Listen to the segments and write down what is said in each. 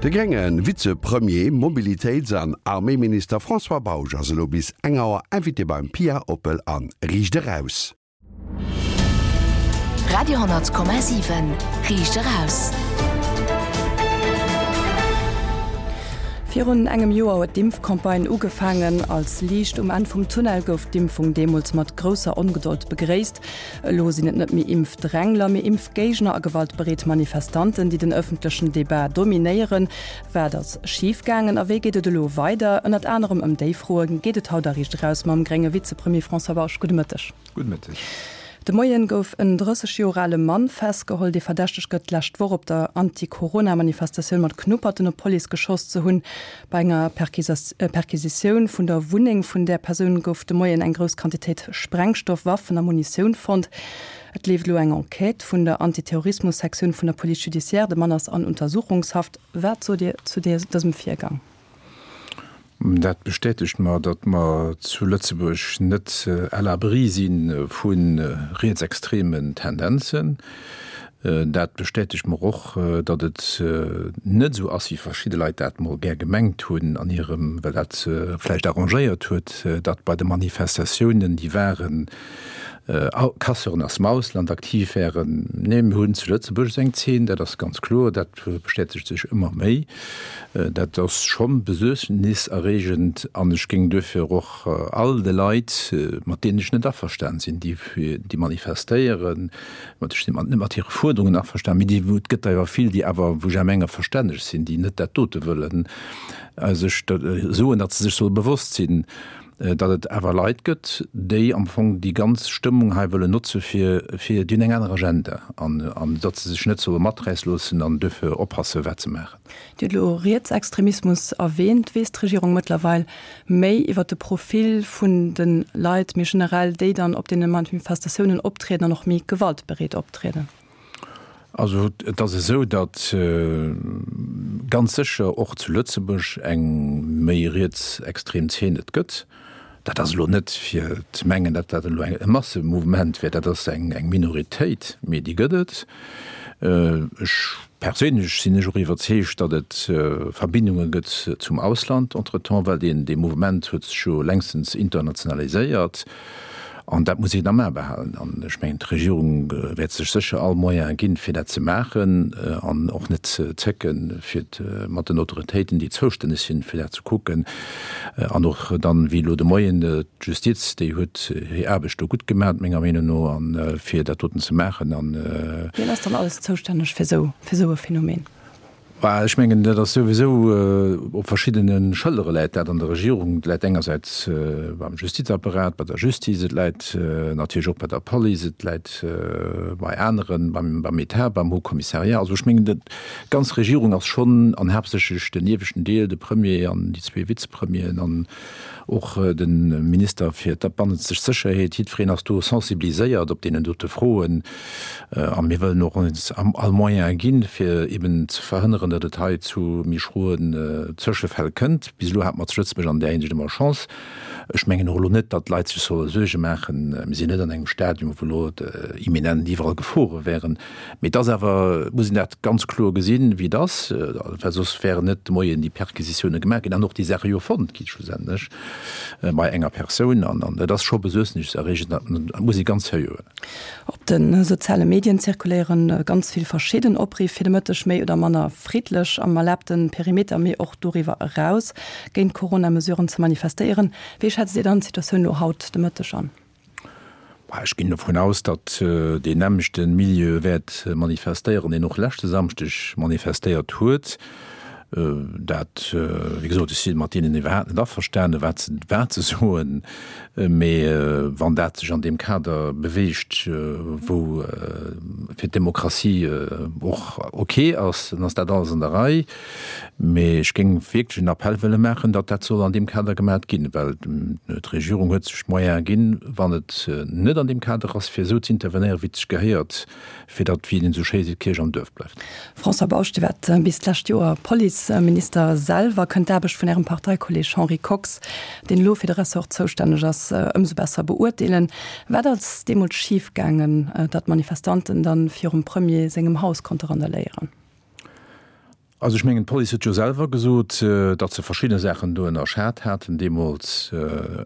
De grénge Vizepremier, Mobilitéits an Arméiminister François Bausch ass elo bis eng Auer Invité beim Pia Oppel an Riicht Eraus. Radio,7 Riicht Eraus. Virun engem Joer huet d'Impfcampagne ugefaangen. Als Liicht um Enn vum Tunnel gouf d'Impfung deemools mat grousser Ongedold begréisst. Elo sinn et net méi Impfdrängler, mee Impfgéigner a gewaltbereet Manifestanten, déi den ëffentlechen Debat dominéieren. Wat ass schif gaangen a wéi geet et elo weider? Ënnert anerem ëm déi Froe geet et haut a Riicht Eraus mam grénge Vizepremier François Bausch. Gudde Mëtteg. Gudde Mëtteg. De Moien gouf en 30 Joer ale Mann festgeholl, dee verdächtegt gëtt, d'lescht Woch op der Anti-Corona-Manifestatioun mat Knupperten op d'Police geschoss ze hunn. Bei enger Perquisitioun vun der Wunneng vun där Persoun gouf de Moien eng grouss Quantitéit Sprengstoff, Waffen a Munitioun fonnt. Et leeft elo eng Enquête vun der Antiterrorismus-Sektioun vun der Police judiciaire. De Mann ass an Untersuchungshaft. Wat sot Dir zu dësem Virgang? Dat bestätegt mer, datt mer zu Lëtzebuerg net à l'abri si vu rietsextremen Tendenzen. Dat bestätegt mer och, datt et net esou ass, wéi verschidde Leit dat mol gär gemengt hunn an hirem, well dat se vläicht arrangéiert huet, datt bei de Manifestatiounen, déi waren, Casseuren aus dem Ausland aktiv wären. Nee, mir hunn zu Lëtzebuerg esou eng Zeen, dat ass ganz kloer, dat bestätegt sech ëmmer méi. Dat ass scho besuergniserreegend an ech géing duerfir och all de Leit, mat deenen ech net averstan sinn, déi déi manifestéieren, mat ech sinn net mat hire Fuerderungen averstan, mee déi, et gëtt der jo vill, déi awer, wou ech awer menge verstänneg sinn, déi net dat dote wëllen, sech soen, datt se sech solle bewosst sinn, datt et awer Leit gëtt, déi am Fong déi ganz Stëmmung hei wëllen notze fir, fir, déi hunn eng aner Agenda an, an datt se sech net solle maträisse loossen an duerfir oppasse wat se maachen. Dir hutt elo Rietsextremismus erwähnt. Weess d'Regierung mëttlerweil méi iwwer de Profil vun de Leit méi generell, déi dann op deene Manifestatiounen optrieden an och méi gewaltbereet optrieden? Also et ass esou, datt ganz sécher och zu Lëtzebuerg eng méi rietsextrem Zeen et gëtt. Dat ass elo net fir ze mengen, datt dat elo e Massemouvement wär, dat ass eng Minoritéit, mee déi gëtt et. Ech perséinlech sinn ech och iwwerzeegt, datt et Verbindunge gëtt zum Ausland entretemps, well deen dee Mouvement huet sech jo längstens internationaliséiert. An dat muss een am A behalen. An ech mengen, d'Regierung wäert sech sécher all Moyen ginn, fir dat ze maachen an och net ze zécken, fir mat den Autoritéiten, déi zoustänneg sinn, fir dat ze kucken. An och dann, wéi elo de Moien, d'Justiz, déi huet hir Aarbecht do gutt gemaach, menger Meenung no, a fir dat doten ze maachen. Wien ass dann alles zoustänneg fir esou e Phänomen? Bah, ech mengen, dat ass souwisou op verschiddene Schëllere läit dat an der Regierung. Et läit engersäits beim Justizapparat, bei der Justiz, et läit natierlech och bei der Police, et läit bei aneren, beim Etat, beim Haut Commissariat. Also ech mengen, d'ganz Regierung ass schonn, an haaptsächlech den ieweschten Deel, de Premier an déi zwee Vizepremieren an och de Minister fir d'bannenzeg Sécherheet, jiddwereen ass do sensibiliséiert op deenen dote Froen. A mir wëllen och ons all Moyen ginn, fir eben ze verhënneren, datt et hei zu méi schroen Zëschefäll kënnt. Bis elo hate mer zu Lëtzebuerg an där Hinsicht ëmmer Chance. Ech mengen och elo net, datt d'Leit sech solle Suerge maachen. Mir sinn net an engem Stadium, wou elo imminent iwwerall Gefore wären. Mee et ass awer, et muss een dat ganz kloer gesinn, wéi et ass, well soss wären net de Moien déi Perquisitioune gemaach ginn an och déi Saache jo fonnt gi schlussendlech bei enger Persoun. An dat ass scho besuergniserreegend, dat muss ee ganz seriö huelen. Op de soziale Medien zirkuléiere ganz vill verschidden Opriff fir de Mëtteg méi oder manner friddlech am erlaabte Perimeter, mee och doriwwer eraus géint d'Corona-Mesuren ze manifestéieren. Wéi schätzt Dir dann d'Situatioun elo haut de Mëtteg an? Ech ginn dovun aus, datt deen nämmlechte Milieu wäert manifestéieren, deen och leschte Samschdeg manifestéiert huet. Dat, wéi gesot, ech si mat deenen iwwerhaapt net averstanen, wat se, wat se soen, mee wann dat sech an deem Kader beweegt, wou fir d'Demokratie och ok ass, dann ass dat alles an der Rei. Mee ech géing wierklech en Appell wëlle maachen, datt dat soll an deem Kader gemaat ginn, well d'Regierung huet sech d'Moyene ginn, wann et net an deem Kader ass, fir esou z'intervenéieren, wéi et sech gehéiert, fir datt, wéi een esou schéi seet, d'Kierch am Duerf bleift. François Bausch, Dir waart bis d'lescht Joer Policeminister selwer. Kënnt d'Aarbecht vun Ärem Parteikolleeg Henri Kox, deen elo fir de Ressort zoustänneg ass, ëmsou besser beurteelen? Wat ass deemools schif gaangen, datt d'Manifestanten dann virum Premier sengem Haus konnte randaléieren? Also ech mengen, d'Police huet jo selwer gesot, datt se verschidde Saachen do ënnerschat haten deemools.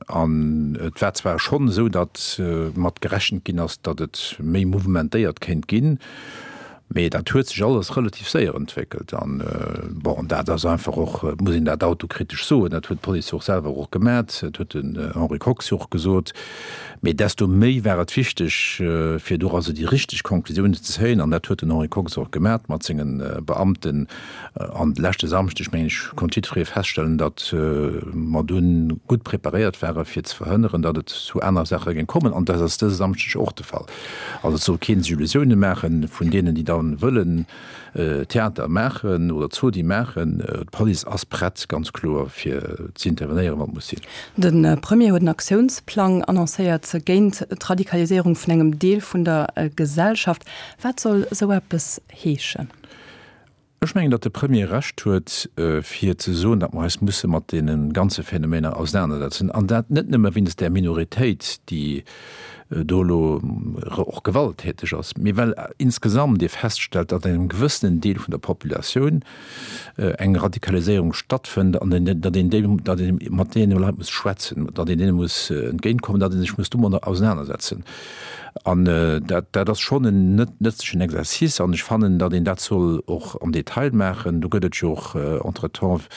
An et war zwar schonn esou, datt mat gerechent ginn ass, datt et méi mouvementéiert kéint ginn, mee dat huet sech alles relativ séier entwéckelt. An bon, dat ass einfach och, et muss een dat autokritesch soen, dat huet d'Police jo och selwer och gemat, dat huet den Henri Kox jo och gesot, Mee desto méi war et wichteg, fir doraus déi richteg Konklusiounen ze zéien. An dat huet den Henri Kox och gemat mat senge Beamten. An de leschte Samschdeg, mengen ech, konnt jiddweree feststellen, datt mer dunn gutt preparéiert ware fir ze verhënneren, datt et zu aner Saache géing kommen. An dat ass dëse Samschdeg och de Fall. Also et soll kee sech Illusiounen maache vun deenen, déi da wëllen Theater maachen oder Zodi maachen. D'Police ass prett, ganz kloer, fir ze intervenéieren, wann et muss sinn. De Premier huet en Aktiounsplang annoncéiert géint d'Radikaliséierung vun engem Deel vun der Gesellschaft. Wat soll esou eppes heeschen? Ech mengen, datt de Premier Recht huet, fir ze soen, datt mer eis musse mat deene ganze Phänomener ausenanersetzen, an dat net nëmme wéinst där Minoritéit, déi do elo och gewalttäteg ass, mee well insgesamt ee feststellt, datt an engem gewëssenen Deel vun der Populatioun eng Radikaliséierung stattfënnt an datt een déi, datt ee mat deene Leit muss schwätzen, datt een deene muss entgéintkommen, datt ee sech muss domadder ausenanersetzen. An dat, dat ass schonn en net nëtzlechen Exercice an ech fannen, datt een dat soll och am Detail maachen. Do gëtt et jo och entretemps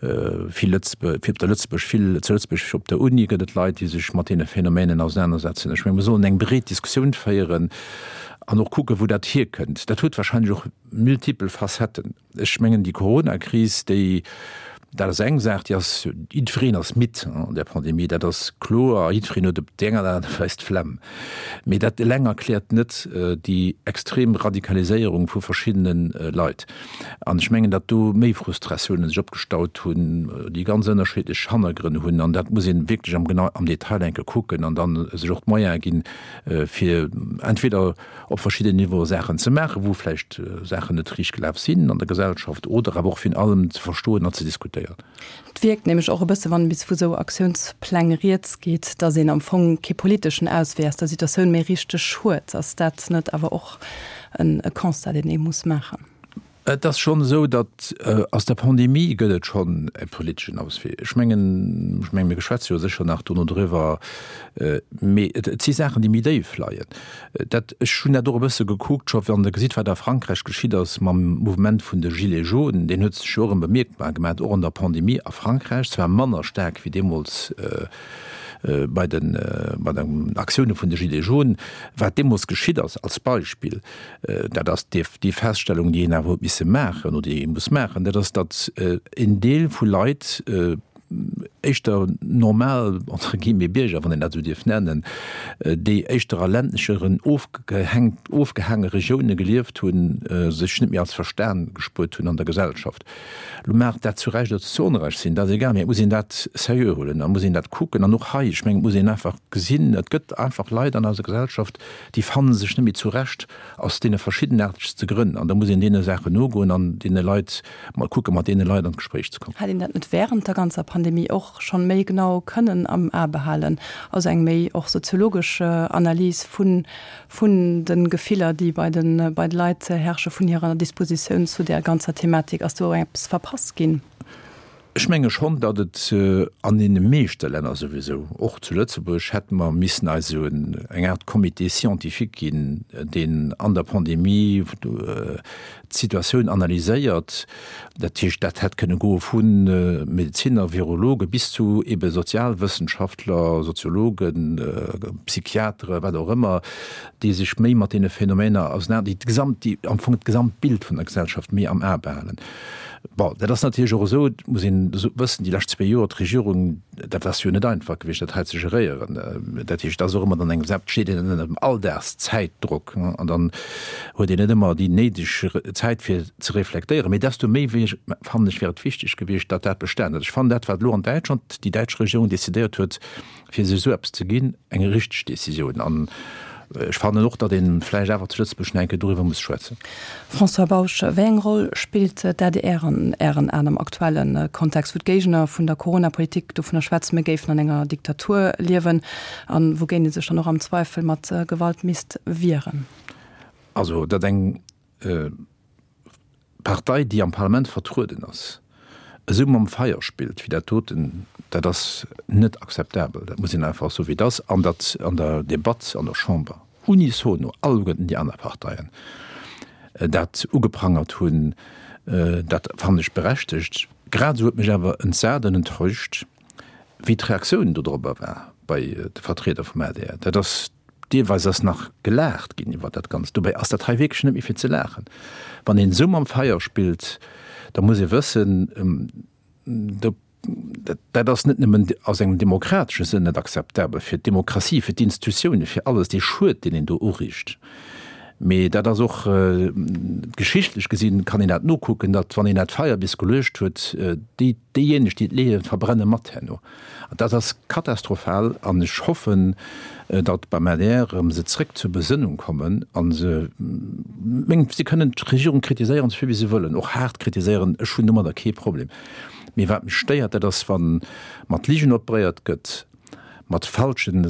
Vill Lëtzebuerg, op der Lëtzebuerg, vill zu Lëtzebuerg op der Uni gëtt et Leit, déi sech mat deene Phänomenen ausenanersetzen. Ech menge mer sollen eng breet Diskussioun féieren an och kucken, wou dat hierkënnt. Dat huet wahrscheinlech och multipel Facetten. Ech mengen déi Coronakris, déi, dat ass eng Saach, déi ass, jiddwereen ass midd an där Pandemie, dat ass kloer, jiddwereen huet op déi eng oder aner Weis d'Flemm. Mee dat eleng erkläert net déi extrem Radikaliséierung vu verschiddene Leit. An ech mengen, datt do méi Frustratiounen sech opgestaut hunn, déi ganz ënnerschiddlech Hannergrënn hunn. An dat muss ee wierklech am genau am Detail enke kucken an dann sech och d'Moyene ginn, fir entweder op verschidden Niveaue Saachen ze maachen, wou vläicht Saachen net riicht gelaf sinn an der Gesellschaft, oder awer och virun allem ze verstoen an ze diskutéieren. Et wierkt nämlech och e bësse, wann bis vu sou Aktiounspläng rieds geet, datt een am Fong kee politeschen Auswee aus der Situatioun méi richteg huet. Ass dat net awer och e Constat, deen ee muss maachen? Et ass schonn esou, datt aus der Pandemie gëtt et schonn e politeschen Auswee. Ech mengen, ech mengen, mir schwätze jo sécher nach dono driwwer, mee et si Saachen, déi méi déif leien. Dat, ech hunn dat och e bësse gekuckt, scho wann Der gesitt, wat a Frankräich geschitt ass mam Mouvement vun de Gilets jaunes, deen huet sech jo och erëm bemierkbar gemaach, och an der Pandemie a Frankräich, zwar manner staark wéi deemools bei den, bei den Aktioune vun de Gilets jaunes. Wat deemools geschitt ass, als Beispill, dat ass déi, déi Feststellung, déi een awer huet misse maachen oder déi ee muss maachen, dat ass, datt en Deel vu Leit, éischter normal, entre guillemets, Bierger, wann een dat esou dierf nennen, déi éischter a ländlecheren, ofgehängt, ofgehaange Regioune gelieft hunn, sech net méi als verstan gespuert hunn an der Gesellschaft. Lo mag dat zu Recht oder zu Onrecht sinn, dat ass egal, mee et muss een dat seriö huelen a muss een dat kucken. An och hei, ech mengen, et muss een einfach gesinn, et gëtt einfach Leit an eiser Gesellschaft, déi fanne sech net méi zurecht aus deene verschiddenaartegste Grënn. An da muss een deene Saachen nogoen an deene Leit Mol kucken, mat deene Leit an d'Gespréich ze kommen. Hätt een dat net während der ganzer Pandemie och schonn méi genau kënnen am A behalen? Also eng méi och soziologesch Analys vun vun de Gefiller, déi bei de bei de Leit herrsche, vun hirer Dispositioun zu där ganzer Thematik. Ass do eppes verpasst ginn? Ech menge schonn, datt et an deene meeschte Länner souwisou, och zu Lëtzebuerg, hätte mer missen eis esou eng Aart Comité scientifique ginn, deen an der Pandemie d'Situatioun analyséiert. Dat heescht, dat hätt kënne goe vu Medezinner, Virologe bis zu ebe Sozialwëssenschaftler, Soziologen, Psychiatere, wat och ëmmer, déi sech méi mat deene Phänomener ausenaner, déi d'Gesamt, déi am Fong d'Gesamtbild vun der Gesellschaft méi am A behalen. Bon, dat ass natierlech och esou, et muss een wëssen, déi lescht zwee Joer, d'Regierung, dat ass jo net einfach gewiescht, dat hei ze geréieren. Dat heescht, et ass och ëmmer dann eng, steet een ënner dem Alldagszäitdrock an dann huet een net ëmmer déi néideg Zäit fir ze reflektéieren. Mee desto méi fannen ech, wär et wichteg gewiescht, datt dat bestanen huet. Ech fannen dat, wat elo an Däitschland déi däitsch Regierung decidéiert huet, fir sech esou eppes ze ginn, eng richteg Décisioun. An ech fannen och, datt ee vläicht awer zu Lëtzebuerg nach eng Kéier doriwwer muss schwätzen. François Bausch, Wéi eng Roll spillt d'ADR an Ären Aen am aktuelle Kontext, wou d'Géigner vun der Corona-Politik dovunner schwätzen, mir géifen an enger Diktatur liewen, a wougéint ee sech dann och am Zweifel mat Gewalt misst wieren? Also, datt eng. Partei, déi am Parlament vertrueden ass, esou mam Feier spillt wéi dat doten, dat ass net akzeptabel. Dat muss een einfach soen, wéi et ass. An datt an der Debatt an der Chamber unisono alleguerten déi aner Parteien dat ugeprangert hunn, dat fannen ech berechtegt. Grad esou huet mech awer entsat an enttäuscht, wéi d'Reaktioun dodrobber war bei de Vertrieder vum adr. Dat ass Deelweis ass nach gelaacht ginn iwwer dat Ganzt. Dobäi ass dat hei wierklech net méi fir ze laachen. Wann een esou mam Feier spillt, da muss ee wëssen, dat ass net nëmmen aus engem demokratesche Sënn net akzeptabel, fir d'Demokratie, fir d'Institutiounen, fir alles, dee Schued, deen een do uriicht, mee dat ass och geschichtlech gesinn, kann een dat nokucken, datt wann een dat Feier bis geluecht huet, déi, Déijéineg, déi et leeën, verbrenne mat herno. An dat ass katastrophal. An ech hoffen, datt beim adr erëm se zréck zur Besënnung kommen a se, meng, si kënnen d'Regierung kritiséieren, esou vill wéi se wëllen, och haart kritiséieren, ech hunn domadder kee Problem. Mee wat mech stéiert, dat ass, wa mat Ligen operéiert gëtt, mat falschen,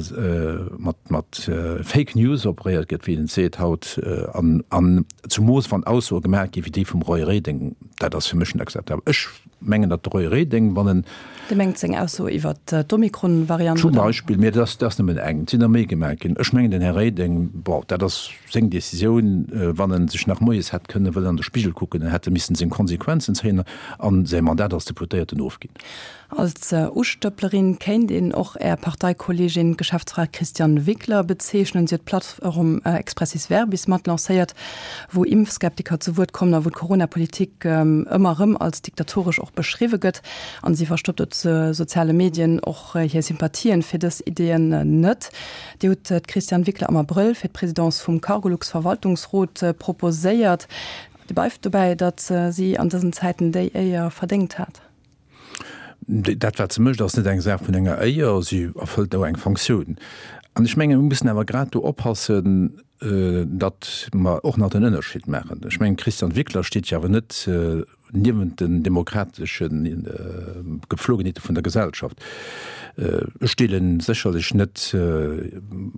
mat, mat Fake News operéiert gëtt, wéi een et seet haut, an, an zemoos wann Aussoe gemaach gi wéi déi vum Roy Reding, dat ass fir mech net akzeptabel. Ech mengen, datt de Roy Reding, wann en. Dir mengt seng Ausso iwwert d'Omikron-Variant, oder? Zum Beispill, mee dat ass, dat ass nëmmen eng, et sinn der méi gemaach ginn. Ech mengen, den Här Reding, bon, dat ass seng Decisioun, wann en sech nach moies hätt kënne wëllen an de Spigel kucken, en hätt e missen seng Konsequenzen zéien an säi Mandat als Deputéierten ofginn. Als Ustëpplerin kéint een och Är Parteikolleegin, d'Geschäftsfra Christiane Wickler bezeechnen. Si huet d'Plattform Expressis Verbis mat lancéiert, wou Impfskeptiker zu Wuert kommen a wou d'Corona-Politik ëmmer erëm als diktatoresch och beschriwwe gëtt. An si verstoppt op soziale Medien och hir Sympathien fir dës Ideeën net. Dir hutt d'Christiane Wickler am Abrëll fir d'Presidence vum Cargolux-Verwaltungsrot proposéiert. Dir bleift dobäi, datt si an dësen Zäiten déi Éier verdéngt hat? Dat, wat se mécht, ass net eng Saach vun enger Éier, si erfëllt do eng Fonctioun. An ech mengen, mir mussen awer grad do oppassen, datt mer och nach den Ënnerscheed maachen. Ech mengen, d'Christiane Wickler steet jo awer net niewent den demokratesche Gepflogenheete vun der Gesellschaft. Ech deele sécherlech net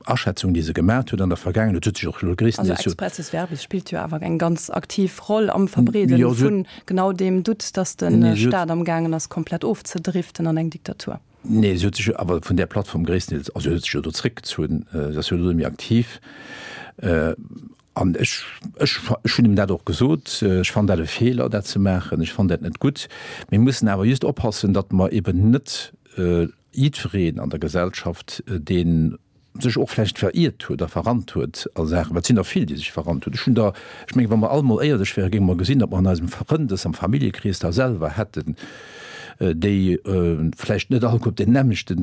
Aschätzungen, déi se gemat huet an der Vergaangenheet. Et huet sech och elo gréisstendeels. Also expressis verbis spillt jo awer eng ganz aktiv Roll am Verbreede vun Genau deem Doute, datt de Staat am gaangen ass komplett ofzedriften an eng Diktatur. Nee, si huet sech jo awer vun där Plattform gréisstendeels, also si huet sech jo do zréckgezunn, si ass jo elo net méi aktiv. An ech, ech, ech hunn him dat och gesot, ech fannen dat e Feeler, dat ze maachen, ech fannen dat net gutt. Mir mussen awer just oppassen, datt mer eben net jiddwereen an der Gesellschaft, deen sech och vläicht veriert huet a verrannt huet a Saachen, well et sinn der vill, déi sech verrannt hunn. Ech hunn der, ech mengen, wa mer all mol éierlech wären, géinge mer gesinn, datt mer an eisem Frëndes am Familljekrees der selwer hätten, déi vläicht net alleguer op deem nämmlechte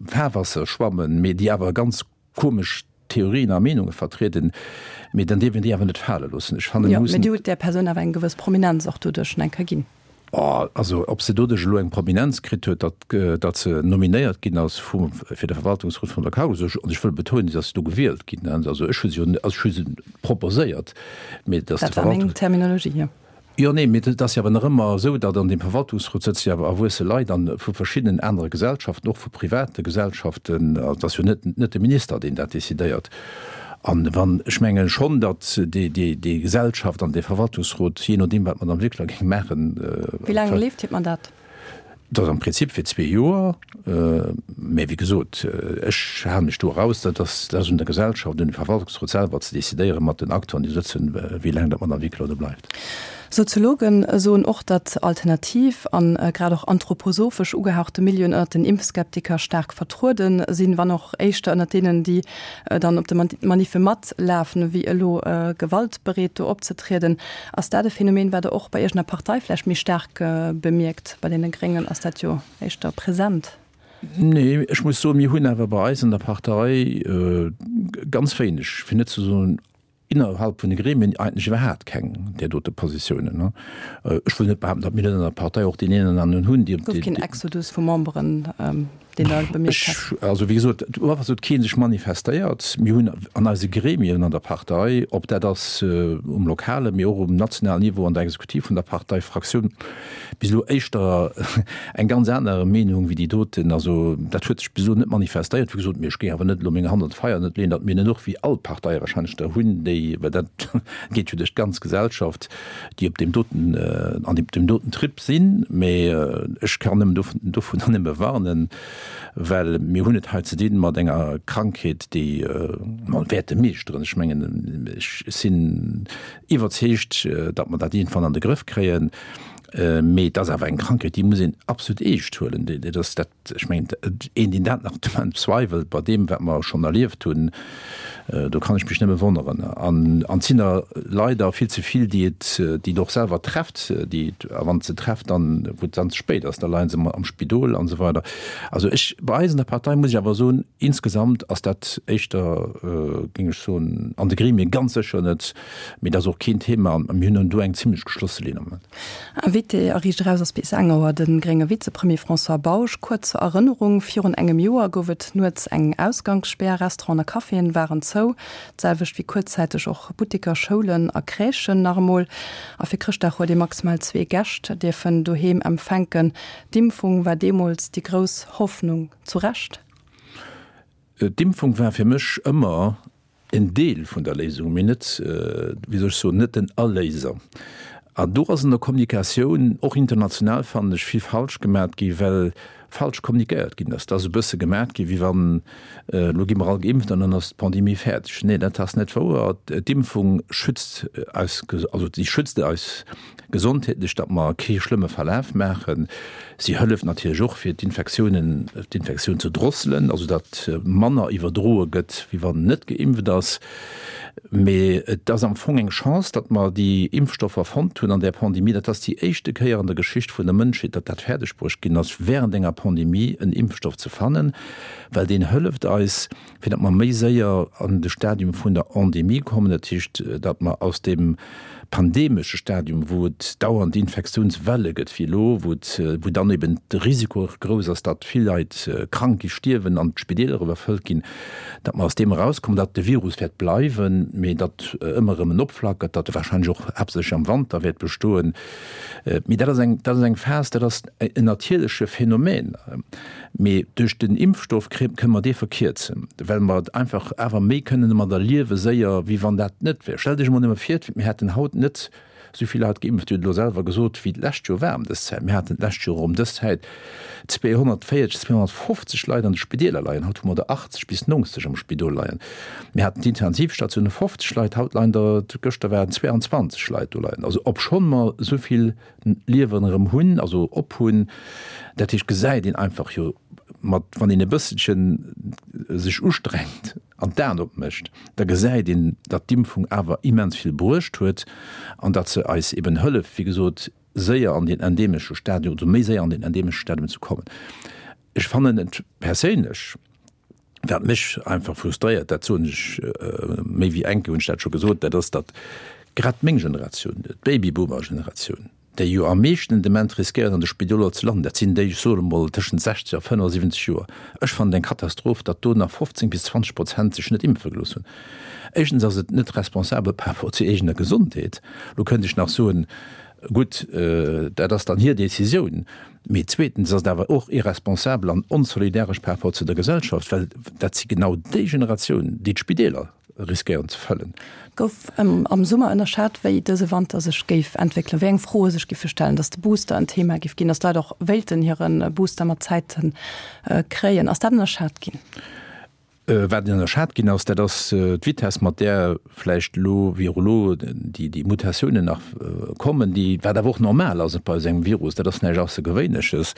Fahrwasser schwammen, mee déi awer ganz komesch Theorien a Meenunge vertrieden. Mee dann dierf een déi awer net fale loossen. Ech fannen, mir mussen. Jo, mee Dir hutt där Persoun awer eng gewëss Prominenz och doduerch eng Kéier ginn. Oh, also ob se doduerch elo eng Prominenz kritt huet, datt, datt se nominéiert ginn ass vum, fir de Verwaltungsrot vun der Cargolux, ech, an ech wëll betonen, si ass do gewielt ginn, hein, also ech hu se jo, also ech hu se proposéiert, mee datt de Dat war meng Terminologie, jo. Jo, nee, mee et ass jo awer nach ëmmer esou, datt an deem Verwaltungsrot sëtze jo awer erwuesse Leit an vu verschiddenen anere Gesellschaften, och vu private Gesellschaften, also et ass jo net, net de Minister, deen dat decidéiert. An wann, ech menge schonn, datt déi, déi, déi Gesellschaft an dee Verwaltungsrot, jee nodeem wat d'Madame Wickler géing maachen, Wéi laang leeft hiert Mandat? Dat ass am Prinzip fir zwee Joer. Mä wéi gesot, ech hale mech do eraus. Dat ass, dat ass un der Gesellschaft, un dem Verwaltungsrot selwer ze decidéieren, mat den Acteuren, déi sëtzen, wéi laang dat d'Madame Wickler do bleift. Soziologen soen och, datt alternativ an grad och anthroposophesch ugehauchte Milieuen ënnert den Impfskeptiker staark vertruede sinn, wann och éischter ënnert deenen, déi dann op de Maniffe matlafen, wéi elo gewaltbereet do opzetrieden. Ass dat e Phänomen, wat Der och bei Iech an der Partei vläicht méi staark bemierkt? Bei deene Gréngen ass dat jo éischter present. Nee, ech muss soen, mir hunn awer bei eis an der Partei ganz wéineg, fir net ze soen innerhalb vun de Gremien eigentlech iwwerhaapt keng där dote Positiounen. Ech wëll net behaapten, datt mir net an der Partei och deen een an aneren hunn, dee. Et gouf keen Exodus vu Memberen. Deen Der bemierkt hätt? Ech, also wéi gesot, uewer huet kee sech manifestéiert. Mir hunn an eise Gremien an der Partei, ob dat ass um lokale mee och um nationalen Niveau an der Exekutiv vun der Parteifraktioun, bis elo éischter eng ganz aner Meenung wéi déi doten. Also dat huet sech bis elo net manifestéiert, wéi gesot. Mee ech géing awer net elo meng Hand an d'Feier net leeën, datt mir net och wéi all d'Parteie wahrscheinlech der hunn, déi, well dat geet jo duerch d'ganz Gesellschaft, déi op deem doten, an deem doten Trip sinn. Mee ech kann nëmmen dovunner nëmme warnen, well mir hunn et hei ze dinn mat enger Krankheet, déi mer wäerte meeschteren. Ech mengen, ech sinn iwwerzeegt, datt mer dat iergendwann an de Grëff kréien. Mee et ass awer eng Krankheet, déi muss een absolut eescht huelen. Dat ass dat, ech mengen, een, deen dat nach de Moment bezweiwelt, bei deem, wat mer schonn erlieft hunn, do kann ech mech nëmme wonneren. An et sinn der leider vill ze vill, déi et, déi et och selwer trefft, déi et, a wann et se trefft, dann, wou et dann ze spéit ass, da leie se am Spidol an esou weider. Also ech, bei eis an der Partei muss ech awer soen, insgesamt ass dat éischter, géing ech soen, an de Gremie ganz sécher net, Mee dat ass och keen Thema an mir hunn do eng zimlech geschlosse Linn am Moment. Invité a Riicht Eraus ass bis eng Auer de grénge Vizepremier François Bausch. Kuerz zur Erënnerung, Virun engem Joer gouf et nuets eng Ausgangsspär, Restauranten a Caféen waren zou, d'selwecht wéi kuerzzäiteg och Butteker, Schoulen a Crèchen nach emol. A fir Chrëschtdag huet ee maximal zwee Gäscht dierfen doheem empfänken. D'Impfung war deemools déi grouss Hoffnung. Zu Recht? D'Impfung war fir mech ëmmer en Deel vun der Léisung, mee net, wéi soll ech soen, net den Erléiser. An do ass an der Kommunikatioun, och international fannen ech, vill falsch gemat gi well falsch kommunikéiert ginn ass. Et ass e bësse gemat gi wéi wann, elo gi mer all geimpft an dann ass d'Pandemie fäerdeg. Nee, dat ass net wouer. D'Impfung schützt eis, also si schützt eis gesondheetlech, datt mer kee schlëmme Verlaf maachen. Si hëlleft natierlech och, fir d'Infektiounen, d'Infektioun ze drosselen, also datt manner iwwerdroe gëtt, wéi wann net geimpft ass. Mee et ass am Fong eng Chance, datt mer déi Impfstoffer fonnt hunn an där Pandemie. Dat ass déi éischte Kéier an der Geschicht vun der Mënschheet, datt dat fäerdegbruecht ginn ass, während enger Pandemie en Impfstoff ze fannen, well deen hëlleft eis, fir datt mer méi séier an de Stadium vun der Endemie kommen, dat heescht, datt mer aus deem pandemesche Stadium, wou et dauernd Infektiounswelle gëtt wéi elo, wou et, wou dann eben de Risiko och grouss ass, datt vill Leit krank gi, stierwen an d'Spideeler iwwerfëllt ginn, datt mer aus deem erauskommen, datt de Virus wäert bleiwen, mee datt ëmmer erëm en opflackert, datt e wahrscheinlech och haaptsächlech am Wanter wäert bestoen. Mee dat ass eng, dat ass eng Phas, dat ass en natierleche Phänomen. Mee duerch den Impfstoff kënne mer dee verkierzen, well mer et einfach awer méi kënnen domadder liewe séier, wéi wann dat net wär. Stellt Iech emol nëmme vir, mir hätten haut net esou vill Leit geimpft, Dir hutt elo selwer gesot, wéi d'lescht Joer war ëm dës Zäit. Mir haten d'lescht Joer ëm dës Zäit 240, 250 Leit an de Spideeler leien, haut hu mer der 80 bis 90 am Spidol leien. Mir haten d'Intensivstatioune 50 Leit, haut leien der, gëschter waren 22 Leit do leien. Also obschonn mer esou vill Liewen erëm hunn, also op hunn. Dat heescht, gesäit een einfach jo mat, wann een e bësselchen sech ustrengt an d'Aen opmécht, da gesäit een, datt d'Impfung awer immens vill bruecht huet an datt se eis eben hëlleft, wéi gesot, séier an deen endemesche Stadium, also méi séier an deen endemesche Stadium ze kommen. Ech fannen et perséinlech, Wat mech einfach frustréiert, dat soen ech méi wéi eng Kéier hunn ech dat scho gesot, dat ass, datt grad meng Generatioun, d'Babyboomer-Generatioun, déi jo am meeschten dement riskéieren an de Spidoler ze landen, dat sinn déi, ech soen emol, tëschent 60 a 75 Joer. Ech fannen et eng Katastroph, datt do nach 15 bis 20 Prozent sech net impfe gelooss hunn. Éischtens ass et net responsabel par rapport zur eegener Gesondheet. Lo kënnt ech nach soen, gutt, dat ass dann hir Decisioun. Mee zweetens ass et awer och irresponsabel an onsolidaresch par rapport zu der Gesellschaft, well dat si genau déi Generatioun, déi d'Spideeler riskéieren ze fëllen. Gouf am Summer ënnerschat, wéi dëse Wanter sech géif entwéckelen, wéi eng Froe sech giffe stellen, datt de Booster en Thema giff ginn, datt d'Leit och wéilten hire Booster mat Zäite kréien. Ass dat ënnerschat ginn? Wat ënnerschat ginn ass, dat ass d'Vitess, mat där vläicht elo, wéi och elo, déi Mutatiounen nach kommen, déi, wat awer och normal ass bei esou engem Virus, dat ass näischt Aussergewéinleches.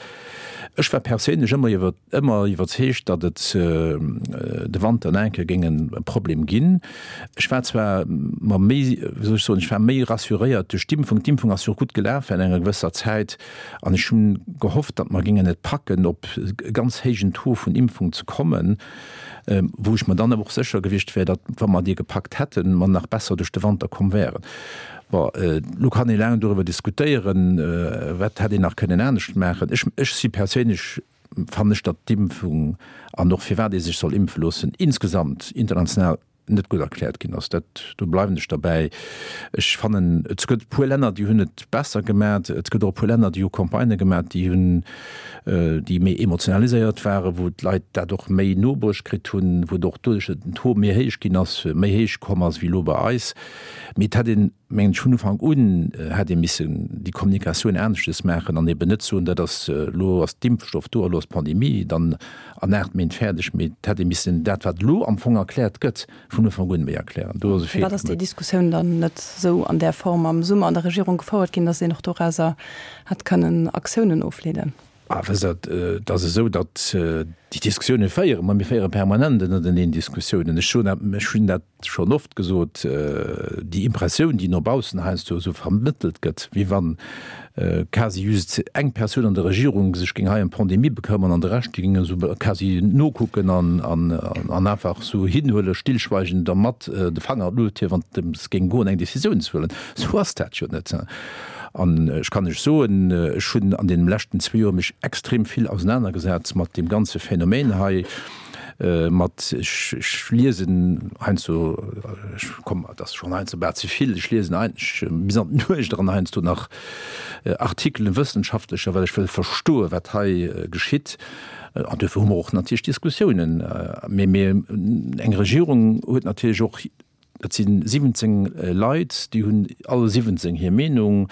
Ech war perséinlech ëmmer iwwer, ëmmer iwwerzeegt, datt et de Wanter nach eng Kéier géing e Problem ginn. Ech war zwar mer méi, wéi soll ech soen, ech war méi rassuréiert duerch d'Impfung. D'Impfung ass jo och gutt gelaf während enger gewësser Zäit. An ech hunn gehofft, datt mer géingen et packen, op e ganz héijen Taux vun Impfung ze kommen, wou ech mer dann awer och sécher gewiescht wär, datt, wa mer dee gepackt hätten, mer nach besser duerch de Wanter komm wären. Bon, elo kann ee laang doriwwer diskutéieren, wat hätt een nach kënnen anescht maachen. Ech, ech si perséinlech. fannen ech, datt d'Impfung an och firwat ee sech soll impfe loossen, insgesamt international net gutt erkläert ginn ass. Dat, do bleiwen ech derbäi. Ech fannen, et gëtt e puer Länner, déi hunn et besser gemat. Et gëtt och e puer Länner, déi hu Campagnë gemat, déi hunn, déi méi emotionaliséiert waren, wou d'Leit dat och méi nobruecht kritt hunn, wou et och doduerch, datt den Taux méi héich ginn ass, méi héich komm ass wéi elo bei eis. Mee et hätt een, mengen ech, vun Ufank un hätt ee missen déi Kommunikatioun aneschtes maachen an eben net soen, dat ass, elo ass d'Impfstoff do a lo ass d'Pandemie dann an 8 Méint fäerdeg, mee et hätt ee missen dat, wat elo am Fong erkläert gëtt, vun Ufank un méi erklären. Do ass e Feeler Firwat ass déi gemaach. Diskussioun dann net esou an där Form am Summer an der Regierung gefouert ginn, datt een och dorauser hätt kënnen Aktiounen ofleeden? Ah, wësst Der, et ass esou, datt déi Diskussioune féiere mer, mir féiere permanent ënnerteneen Diskussiounen. Ech soen dat, ech hunn dat schonn oft gesot, déi Impressioun, déi no baussen heiansdo esou vermëttelt gëtt, wéi wann quasi just eng Persoun an der Regierung sech géing hei ëm d'Pandemie bekëmmern an de Rescht, déi géingen esou quasi nokucken an an einfach esou hinhuelen, stillschweigend a mat de Fanger an d'Luucht hiewen, wann et drëms géing goen, eng Decisioun ze huelen. Esou ass dat jo net. An ech kann lech soen, ech hunn an deenen leschten zwee Joer mech extrem vill ausenanergesat mat deem ganze Phänomen hei, mat, ech, ech liesen heiansdo, ech komm, et ass schonn heiansdo bal ze vill, ech liesen eigentlech bis an d'Nuecht eran heiansdo nach Artikelen, wëssenschaftlecher, well ech wëll verstoen, wat hei geschitt. An duerfir hu mer och natierlech Diskussiounen. Mee, mee eng Regierung huet natierlech och Et si 17 Leit, déi hunn alle 17 hir Meenung.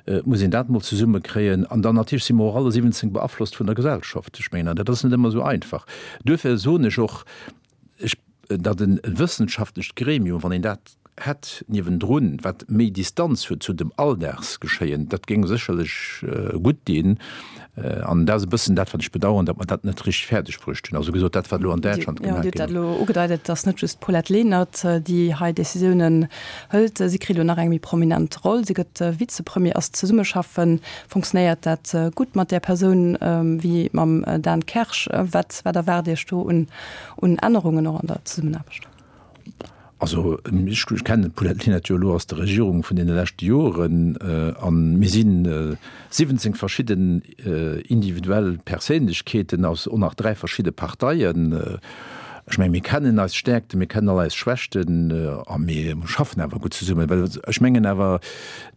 Et muss een dat mol zesummekréien. An dann natierlech si mer och alle 17 beaflosst vun der Gesellschaft. Ech mengen, an dat ass net ëmmer esou einfach. Duerfir soen ech och, ech, datt e wëssenschaftlecht Gremium, wann een dat hätt niewendrun, wat méi Distanz huet zu dem Alldagsgeschéien, dat géing sécherlech gutt dinn. An dat ass e bëssen dat, wat ech bedauern, datt mer dat net richteg fäerdeg bruecht hunn. Also gesot, dat, wat elo an Däitschland gemaach ginn ass. Jo, Dir hutt dat elo ugedeit. Et ass net just d'Paulette Lenert, déi hei Decisiounen hëlt. Si kritt elo nach eng méi prominent Roll. Si gëtt Vizepremier. Ass d'Zesummeschaffen, funktionéiert dat gutt mat där Persoun wéi mam Dan Kersch? Wat, wat erwaart Iech do un, un Ännerungen och an der Zesummenaarbecht? Also ech kennen d'Paulette Lenert jo elo aus der Regierung vun deene leschte Joren a mir si 17 verschidden individuell Perséinlechkeeten aus och nach 3 verschidde Parteien. Ech mengen, mir kennen eis Stäerkten, mir kennen all eis Schwächten a mir schaffen awer gutt zesummen. Well ech mengen awer,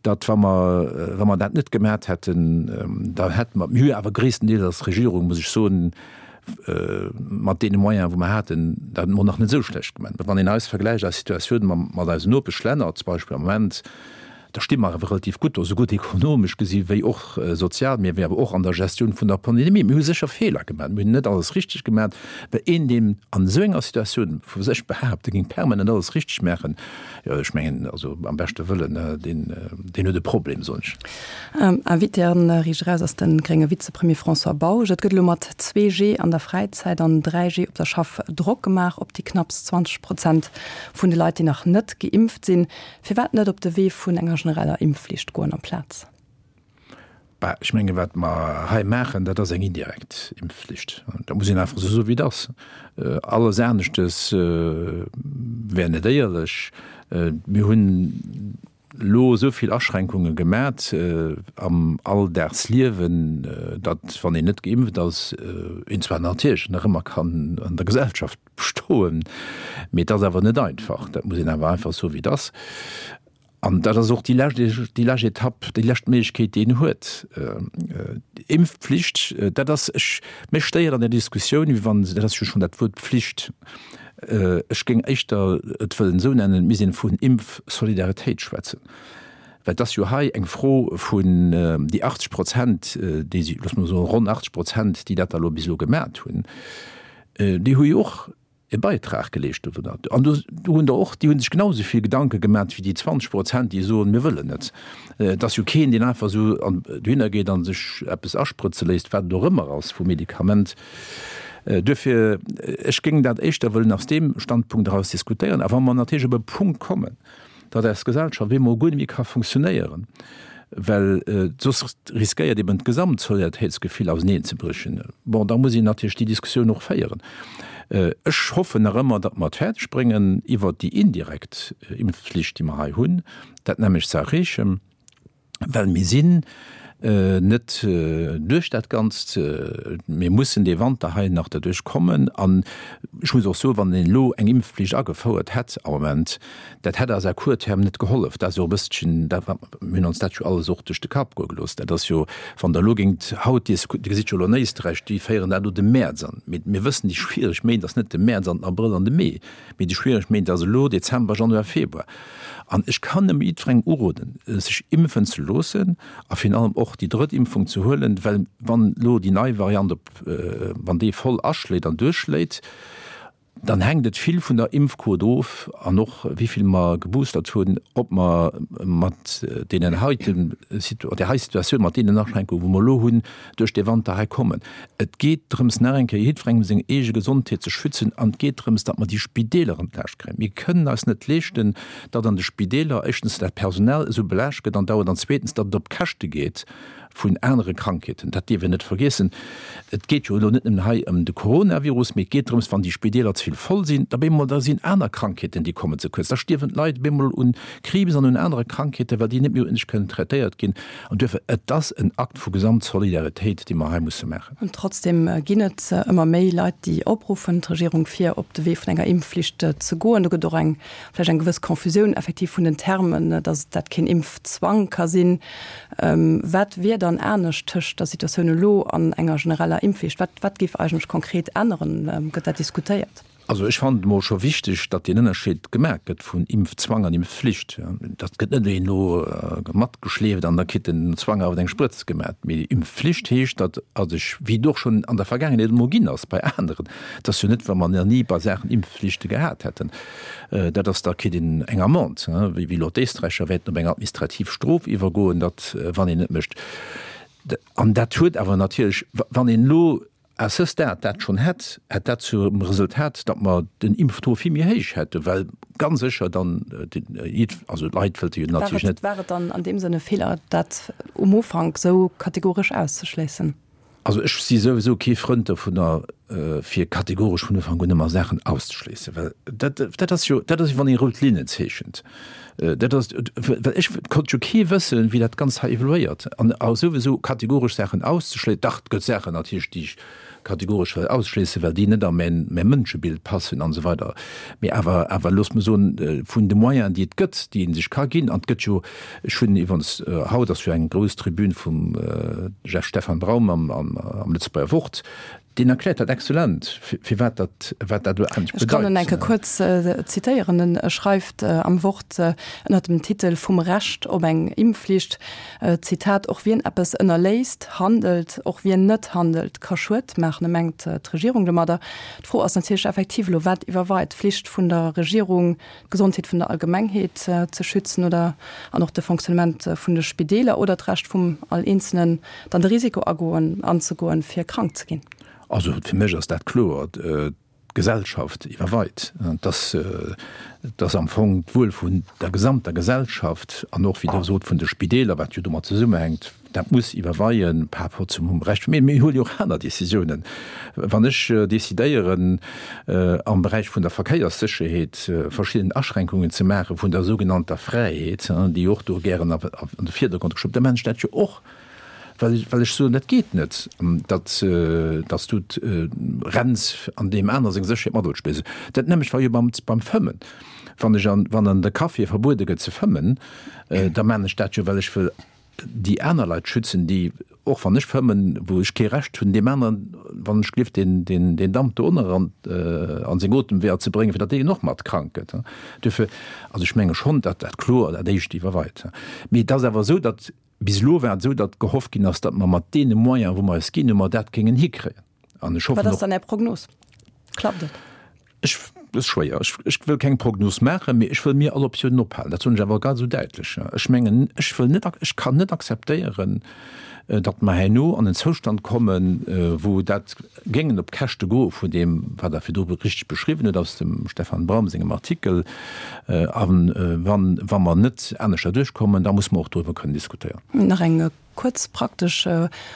datt wa mer, wa mer dat net gemat hätten, da hätte mer, mir hu jo awer gréisstendeels als Regierung, muss ech soen, mat deene Moyenen, wou mer haten, dat mol nach net esou schlecht gemaach. Wann een eis vergläicht, eis Situatioun mat eisen Nopeschlänner zum Beispill am Moment, da sti mer awer relativ gutt do, sougutt ekonomesch gesi wéi och sozial, mee awer och an der Gestioun vun der Pandemie. Mir hu sécher Feeler gemaach, mir hunn net alles richteg gemaach, well een, deen an esou enger Situatioun vu sech behaapt, e géing permanent alles richteg maachen, jo, ech mengen, also am beschte Wëllen, deen, deen huet e Problem, soen ech. Invité an Riicht Eraus ass de grénge Vizepremier François Bausch. Et gëtt elo mat 2G an der Fräizäit an 3G op der Schaff Drock gemaach op déi knapps 20 Prozent vun de Leit, déi nach net geimpft sinn. Firwat net op de Wee vun enger genereller Impfflicht goen amplaz? Bah, ech menge wat mer hei maachen, dat ass eng indirekt Impfflicht. Dat muss een einfach esou soen, wéi et ass. Alles aneschtes wär net éierlech. Mir hunn elo esou vill Aschränkunge gemat am Alldagsliewen, datt, wann een net geimpft ass, een zwar natierlech nach ëmmer kann an der Gesellschaft bestoen, mee et ass awer net einfach. Dat muss een awer einfach soen, wéi et ass. An dat ass och déi lescht, déi lescht Etapp, déi lescht Méiglechkeet, déi een huet. Impfpflicht, dat ass, ech, mech stéiert an der Diskussioun, wéi wann, dat ass jo schonn dat Wuert Pflicht, Ech géing éischter et wëllen esou nennen, et misst een vun Impfsolidaritéit schwätzen, well et ass jo hei eng Fro vun déi 80 Prozent, déi si, loosse mer soen, ronn 80 Prozent, déi dat da elo bis elo gemat hunn, déi hu jo och e Beitrag geleescht dowunner. An do hunn der och, déi hu sech genau esou vill Gedanke gemat wéi déi 20 Prozent, déi soen, mir wëllen net. Et ass jo keen, deen einfach esou dohinner geet a sech eppes asprëtze léisst, wat et och ëmmer ass vu Medikament. Duerfir, ech géing dat éischter wëllen aus deem Standpunkt eraus diskutéieren. A wa mer natierlech op e Punkt kommen, datt eis Gesellschaft op eemol guer net méi ka funktionéieren, well soss riskéiert eben d'Gesamtsolidaritéitsgefill auseneenzebréchen, bon, da muss een natierlech déi Diskussioun och féieren. Ech hoffen nach ëmmer, datt mer et fäerdeg bréngen, iwwert déi indirekt Impfflicht, déi mer hei hunn, dat nämmlecht ze erreechen. Well mir sinn. Net duerch dat Ganzt. Mir mussen dee Wanter hei nach derduerch kommen. An ech muss och soen, wann een elo eng Impfflicht agefouert hätt am Moment, dat hätt eis à court terme net gehollef. Dat ass jo och e bësselchen dat, wat mir hunn ons dat jo alles och duerch de Kapp goe gelooss. Dat ass jo, wann Der elo géingt haut, Dir gesitt jo elo an Éisträich, déi féieren dat elo de Mäerz an. Mee mir wëssen, déi schwiereg Méint ass net de Mäerz an den Abrëll an de Mee, mee déi schwiereg Méint ass elo Dezember, Januar, Februar. An ech kann nëmme jiddwerengem uroden, sech impfen ze loossen a virun allem och déi drëtt Impfung ze huelen, well wann elo déi nei Variant op, wann déi voll aschléit an duerchschléit, dann hänkt et vill vun der Impfquot of an och wéi vill mer geboostert hunn, ob mer mat deenen heiten, där hei Situatioun, mat deenen Aschränkungen, wou mer elo hunn, duerch dee Wanter hei kommen. Et geet drëms, nach eng Kéier jiddwerengem seng eege Gesondheet ze schützen an et geet drëms, datt mer déi Spideeler entlaascht kréien. Mir kënnen eis net leeschten, datt an de Spideeler éischtens dat Personal esou belaascht gëtt andauernd an zweetens, datt et op Käschte geet vun anere Krankheeten. Dat dierf een net vergiessen. Et geet jo elo net nëmmen hei ëm de Coronavirus, mee et geet drëms, wann déi Spideeler ze vill voll sinn, da bemol, da sinn aner Krankheeten, déi kommen ze kuerz. Da stierwen d'Leit bemol un Kriibs an un anere Krankheeten, well déi net méi uerdentlech kënnen traitéiert ginn. An duerfir, et ass en Akt vu Gesamtsolidaritéit, dee mer hei musse maachen. An trotzdem ginn et ëmmer méi Leit, déi opruffen, d'Regierung fir op de Wee vun enger Impfflicht ze goen. Do gëtt och eng, vläicht eng gewëss Confusioun effektiv vun den Termen, datt dat keen Impfzwang ka sinn. Wat wier dann anescht tëscht der Situatioun elo an enger genereller Impfflicht? Wat, wat géif eigentlech konkret änneren? Gëtt dat diskutéiert? Also ech fannen et emol scho wichteg, datt deen Ënnerscheed gemaach gëtt vun Impfzwang an Impfflicht. Dat gëtt net een elo matgeschleeft an da kritt den Zwang awer eng Sprëtz gemaach. Mee Impfflicht heescht, datt also ech, wéi et och schonn an der Vergaangenheet emol ginn ass bei aneren, et ass jo net, wa mer nach ni bei Saachen Impfflichte gehat hätten, dat ass, da kritt een eng Amende, wéi elo d'Éisträicher wäerten op eng administrativ Strof iwwergoen, datt wann een net mécht. An dat huet awer natierlech, wann een elo À ce stade dat schonn hätt, hätt dat zum Resultat, datt mer den Impftaux vill méi héich hätten, well ganz sécher dann, also d'Leit wëllte jo natierlech net. War et dann an deem Sënn e Feeler, dat um Ufank esou kategoresch auszeschléissen? Also ech si souwisou kee Frënd dovunner, fir kategoresch vun Ufank un ëmmer Saachen auszeschléissen, well dat, dat ass jo, dat ass wéi wann ee rout Linnen zeechent. Dat ass, well ech konnt jo kee wëssen, wéi dat Ganzt hei evoluéiert. An souwisou kategoresch Saachen auszeschléissen, dach, et gëtt Saachen natierlech, déi ech kategoresch wëll ausschléissen, well déi net a mäin, mäi Mënschebild passen an esou weider. Mee awer, awer loosst mer soen, vun de Moyenen, déi et gëtt, déi ee sech ka ginn, an et gëtt jo, ech hunn iwwerens, haut ass jo eng grouss Tribün vum Jeff Stefan Braum am, am, am Lëtzebuerger Wort, Deen erkläert dat exzellent, firwat dat, wat dat elo eigentlech bedeit. Ech kann en eng Kéier kuerz zitéieren. En schreift am Wort ënnert dem Titel Vum Recht op eng Impfflicht, Zitat, Och wien eppes ënnerléisst, handelt, och wien net handelt, ka Schued maachen. E mengt d'Regierung domadder. D'Fro ass natierlech effektiv elo, Wat iwwerweit, d'Flicht vun der Regierung, d'Gesondheet vun der Allgemengheet ze schützen oder an och de Fonctionnement vun de Spideeler oder d'Recht vum all Eenzelnen, dann de Risiko agoen, anzegoen, fir krank ze ginn? Also fir mech ass dat kloer, d'Gesellschaft iwwerweit. Et ass, et ass am Fong d'Wuel vun der gesamter Gesellschaft an och, wéi Der sot, vun de Spideeler, wat jo domat zesummehänkt, Dat muss iwwerweien par rapport zum Recht. Mee mir huele jo och aner Décisiounen. Wann ech décidéieren, am Beräich vun der Verkéierssécherheet verschidden Aschränkungen ze maache vun der sougenannter Fräiheet, déi och do gären an de Virdergrond geschoben, da maachen ech dat jo och, well ech soen, dat geet net, datt s du renns an deem aner seng Sécherheet mat opspills. Dat nämmlecht war jo beim Fëmmen. Wann ech an, wann an de Caféë verbuede gëtt ze fëmmen, da maachen ech dat jo, well ech wëll déi aner Leit schützen, déi, och wann ech fëmmen, wou ech kee Recht hunn, deem aneren, wann ech gelift, deen, deen, deen Damp do ënner an, an seng Otemweeër ze bréngen, fir datt deen och mat krank gëtt. Duerfir, also ech menge schonn, datt dat kloer dat éischt iwwerweit. Mee et ass awer esou, datt bis elo war et esou, datt gehofft ginn ass, datt mer mat deene Moyenen, wou mer eis ginn hunn, mer dat géingen hikréien. An ech hoffen och. Wat ass dann Är Prognos? Klappt et? Ech, dat ass schwéier. Ech, ech wëll keng Prognos maachen, mee ech wëll mir all Optiounen ophalen. Dat soen ech awer ganz esou däitlech. Ech mengen, ech wëll net, ech kann net akzeptéieren, datt mer herno an en Zoustand kommen, wou dat géingen op d'Käschte goe vun deem, wat Der virdru richteg beschriwwen hutt aus dem Stefan Braum sengem Artikel. A wann, wa mer net aneschter duerchkommen, da muss mer och doriwwer kënnen diskutéieren. Nach eng Kuerz praktesch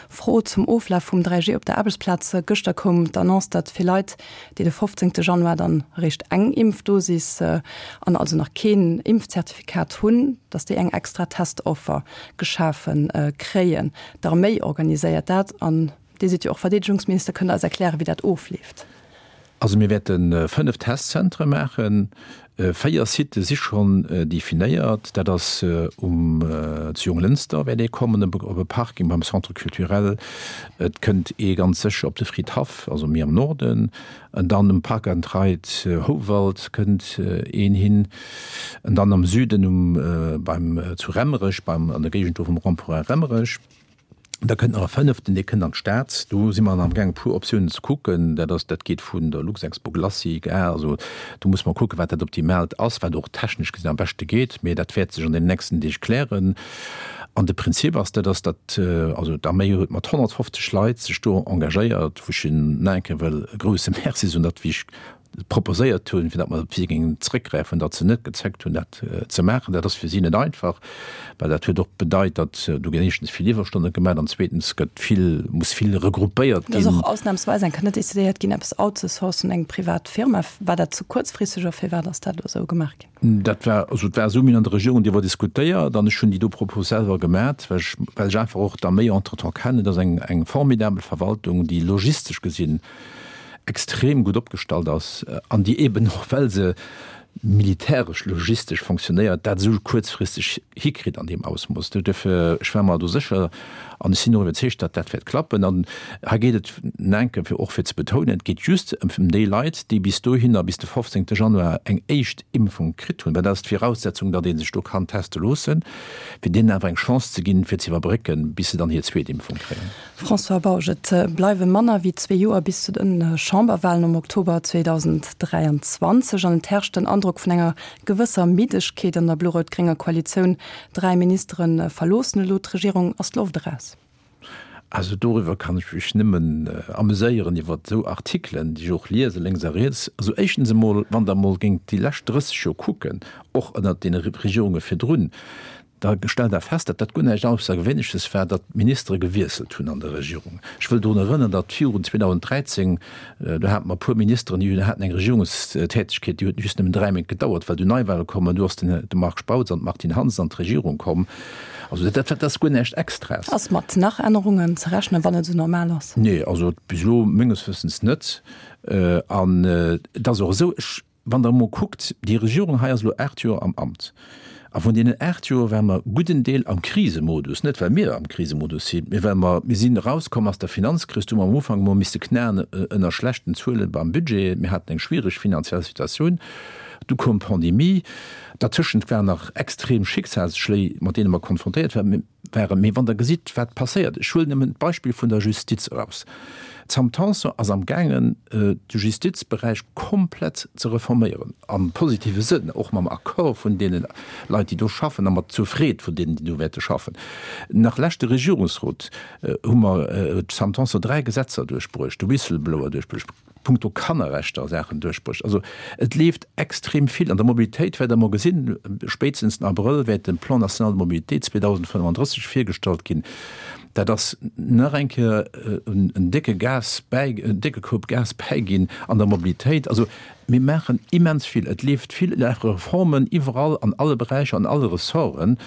Fro zum Oflaf vum 3G op der Aarbechtsplaz. Gëschter koum d'Annonce, datt fir Leit, déi de 15 Januar dann eréischt eng Impfdosis an also nach keen Impfzertifikat hunn, datt déi eng extra Testoffer geschafe kréien. D'Arméi organiséiert dat an Dir sidd jo och Verdeedegungsminister, kënnt Der eis erklären, wéi dat ofleeft? Also mir wäerte 5 Testzentre maachen. 4 Sitë si schonn definéiert. Dat ass um zu Jonglënster wäert ee kommen op e Parking beim Centre culturel. Et kënnt ee ganz sécher op de Fridhaff, also méi am Norden. An dann um Park and Ride Houwald kënnt een hin. An dann am Süden um beim zu Remmerech beim an der Géigend do vum Rond-point Remmerech. Da kënnt nach e fënneften, dee kënnt an d'Stad. Do si mer amgaang e puer Optiounen ze kucken. Dat ass, dat geet vun der Luxexpo Glacis, Gare, also do muss mer kucken, wat dat Optimaalt ass, wat och technesch gesinn am beschte geet. Mee dat wäert sech an den nächsten Deeg klären. An de Prinzip ass, dat ass, datt, also d'Arméi huet mat 150 Leit sech do engagéiert, wou ech hinnen nach eng Kéier wëll e grouse Merci soen, datt, wéi ech proposéiert hunn, fir datt mer op si géingen zrëckgräifen, datt se net gezéckt hunn, dat ze maachen. Dat ass fir si net einfach, well dat huet och bedeit, datt do ginn éischtens vill Iwwerstonne gemaach an zweetens gëtt vill, muss vill regruppéiert ginn. Et ass och ausnamsweis eng Kéier net decidéiert ginn, eppes outzesourcen, eng privat Firma. War dat ze kuerzfristeg oder firwat ass dat elo esou gemaach ginn? Dat war, also et war esou, mir hunn an der Regierung driwwer diskutéiert an ech hunn déi do Propos selwer gemat, well ech, well ech einfach och d'Arméi entretemps kennen. Dat ass eng, eng formidabel Verwaltung, déi logistesch gesinn extrem gutt opgestallt ass an déi eben och, well se militäresch logistesch fonctionnéiert, dat esou kuerzfristeg hikritt an deem Ausmooss. Duerfir, ech war mer do sécher an ech sinn och iwwerzeegt, datt dat wäert klappen. An hei geet et enke fir och fir ze betounen, et geet just ëm déi Leit, déi bis dohinner, bis de 15. Januar eng éischt Impfung kritt hunn, well dat ass d'Viraussetzung, datt ee sech do kann teste loossen, fir deenen awer eng Chance ze ginn, fir ze iwwerbrécken, bis se dann hir zweet Impfung kréien. François Bausch, Et bleiwe manner wéi zwee Joer bis zu de Chamberwahlen am Oktober 2023 an et herrscht den Androck vun enger gewësser Middegkeet an der blo-rout-grénger Koalitioun. Dräi Ministere verloossen elo d'Regierung. Ass d'Loft eraus? Also doriwwer kann ech mech nëmmen ameséieren, iwwer esou Artikelen, déi ech och liese lénks a riets. Also éischtens emol, wann Der emol géingt déi lescht 30 Joer kucken, och ënnert deene Regierunge virdrun, Da stellt Der fest, datt dat guer näischt Aussergewéinleches war, datt d'Ministere gewiesselt hunn an der Regierung. Ech wëll drun erënnern, datt virun 2013, do hate mer e puer Ministeren, déi haten eng Regierungstätegkeet, déi huet just nëmmen dräi Méint gedauert, well du Neiwahle komm an du ass den de Marc Spautz an d'Martine Hansen an d'Regierung komm. Also dat, dat ass guer näischt Extraes. Ass mat nach Ännerungen ze rechnen, wann et esou normal ass? Nee, also bis elo menges Wëssens net. An et ass och esou, ech Wann Der emol kuckt, déi Regierung hei ass elo 8 Joer am Amt. A vun deenen 8 Joer ware mer gudden Deel am Krisemodus, net well mir am Krisemodus sinn, mee well mer, mir sinn erauskomm aus der Finanzkris, do hu mer am Ufank emol misste knaen ënner schlechten Zuele beim Budget, mir haten eng schwiereg finanziell Situatioun, du koum d'Pandemie, dertëschent waren nach extrem Schicksalsschléi, mat deene mer konfrontéiert waren. Waren. Mee wann Der gesitt, wat passéiert, ech huelen nëmmen d'Beispill vun der Justiz eraus, D'Sam Tanson ass amgaangen, de Justizberäich komplett ze reforméieren, am positive Sënn, och mam Accord vun deene Leit, déi do schaffen, a mat zur Freed vun deenen, déi do wäerte schaffen. Nach leschte Regierungsrot hu mer, huet d'Sam Tanson dräi Gesetzer duerchbruecht, de Whistleblower duerchbruecht, punkto Kannerrechter Saachen duerchbruecht. Also et leeft extrem vill. An der Mobilitéit wäert Der emol gesinn, spéitstens den Abrëll wäert de Plan national de mobilité 2035 virgestallt ginn. Dat ass nach eng Kéier en décke Gas bäi, en décke Koup Gas bäiginn an der Mobilitéit. Also mir maachen immens vill. Et leeft vill, et lafe Reformen iwwerall an alle Beräicher, an alle Ressorten.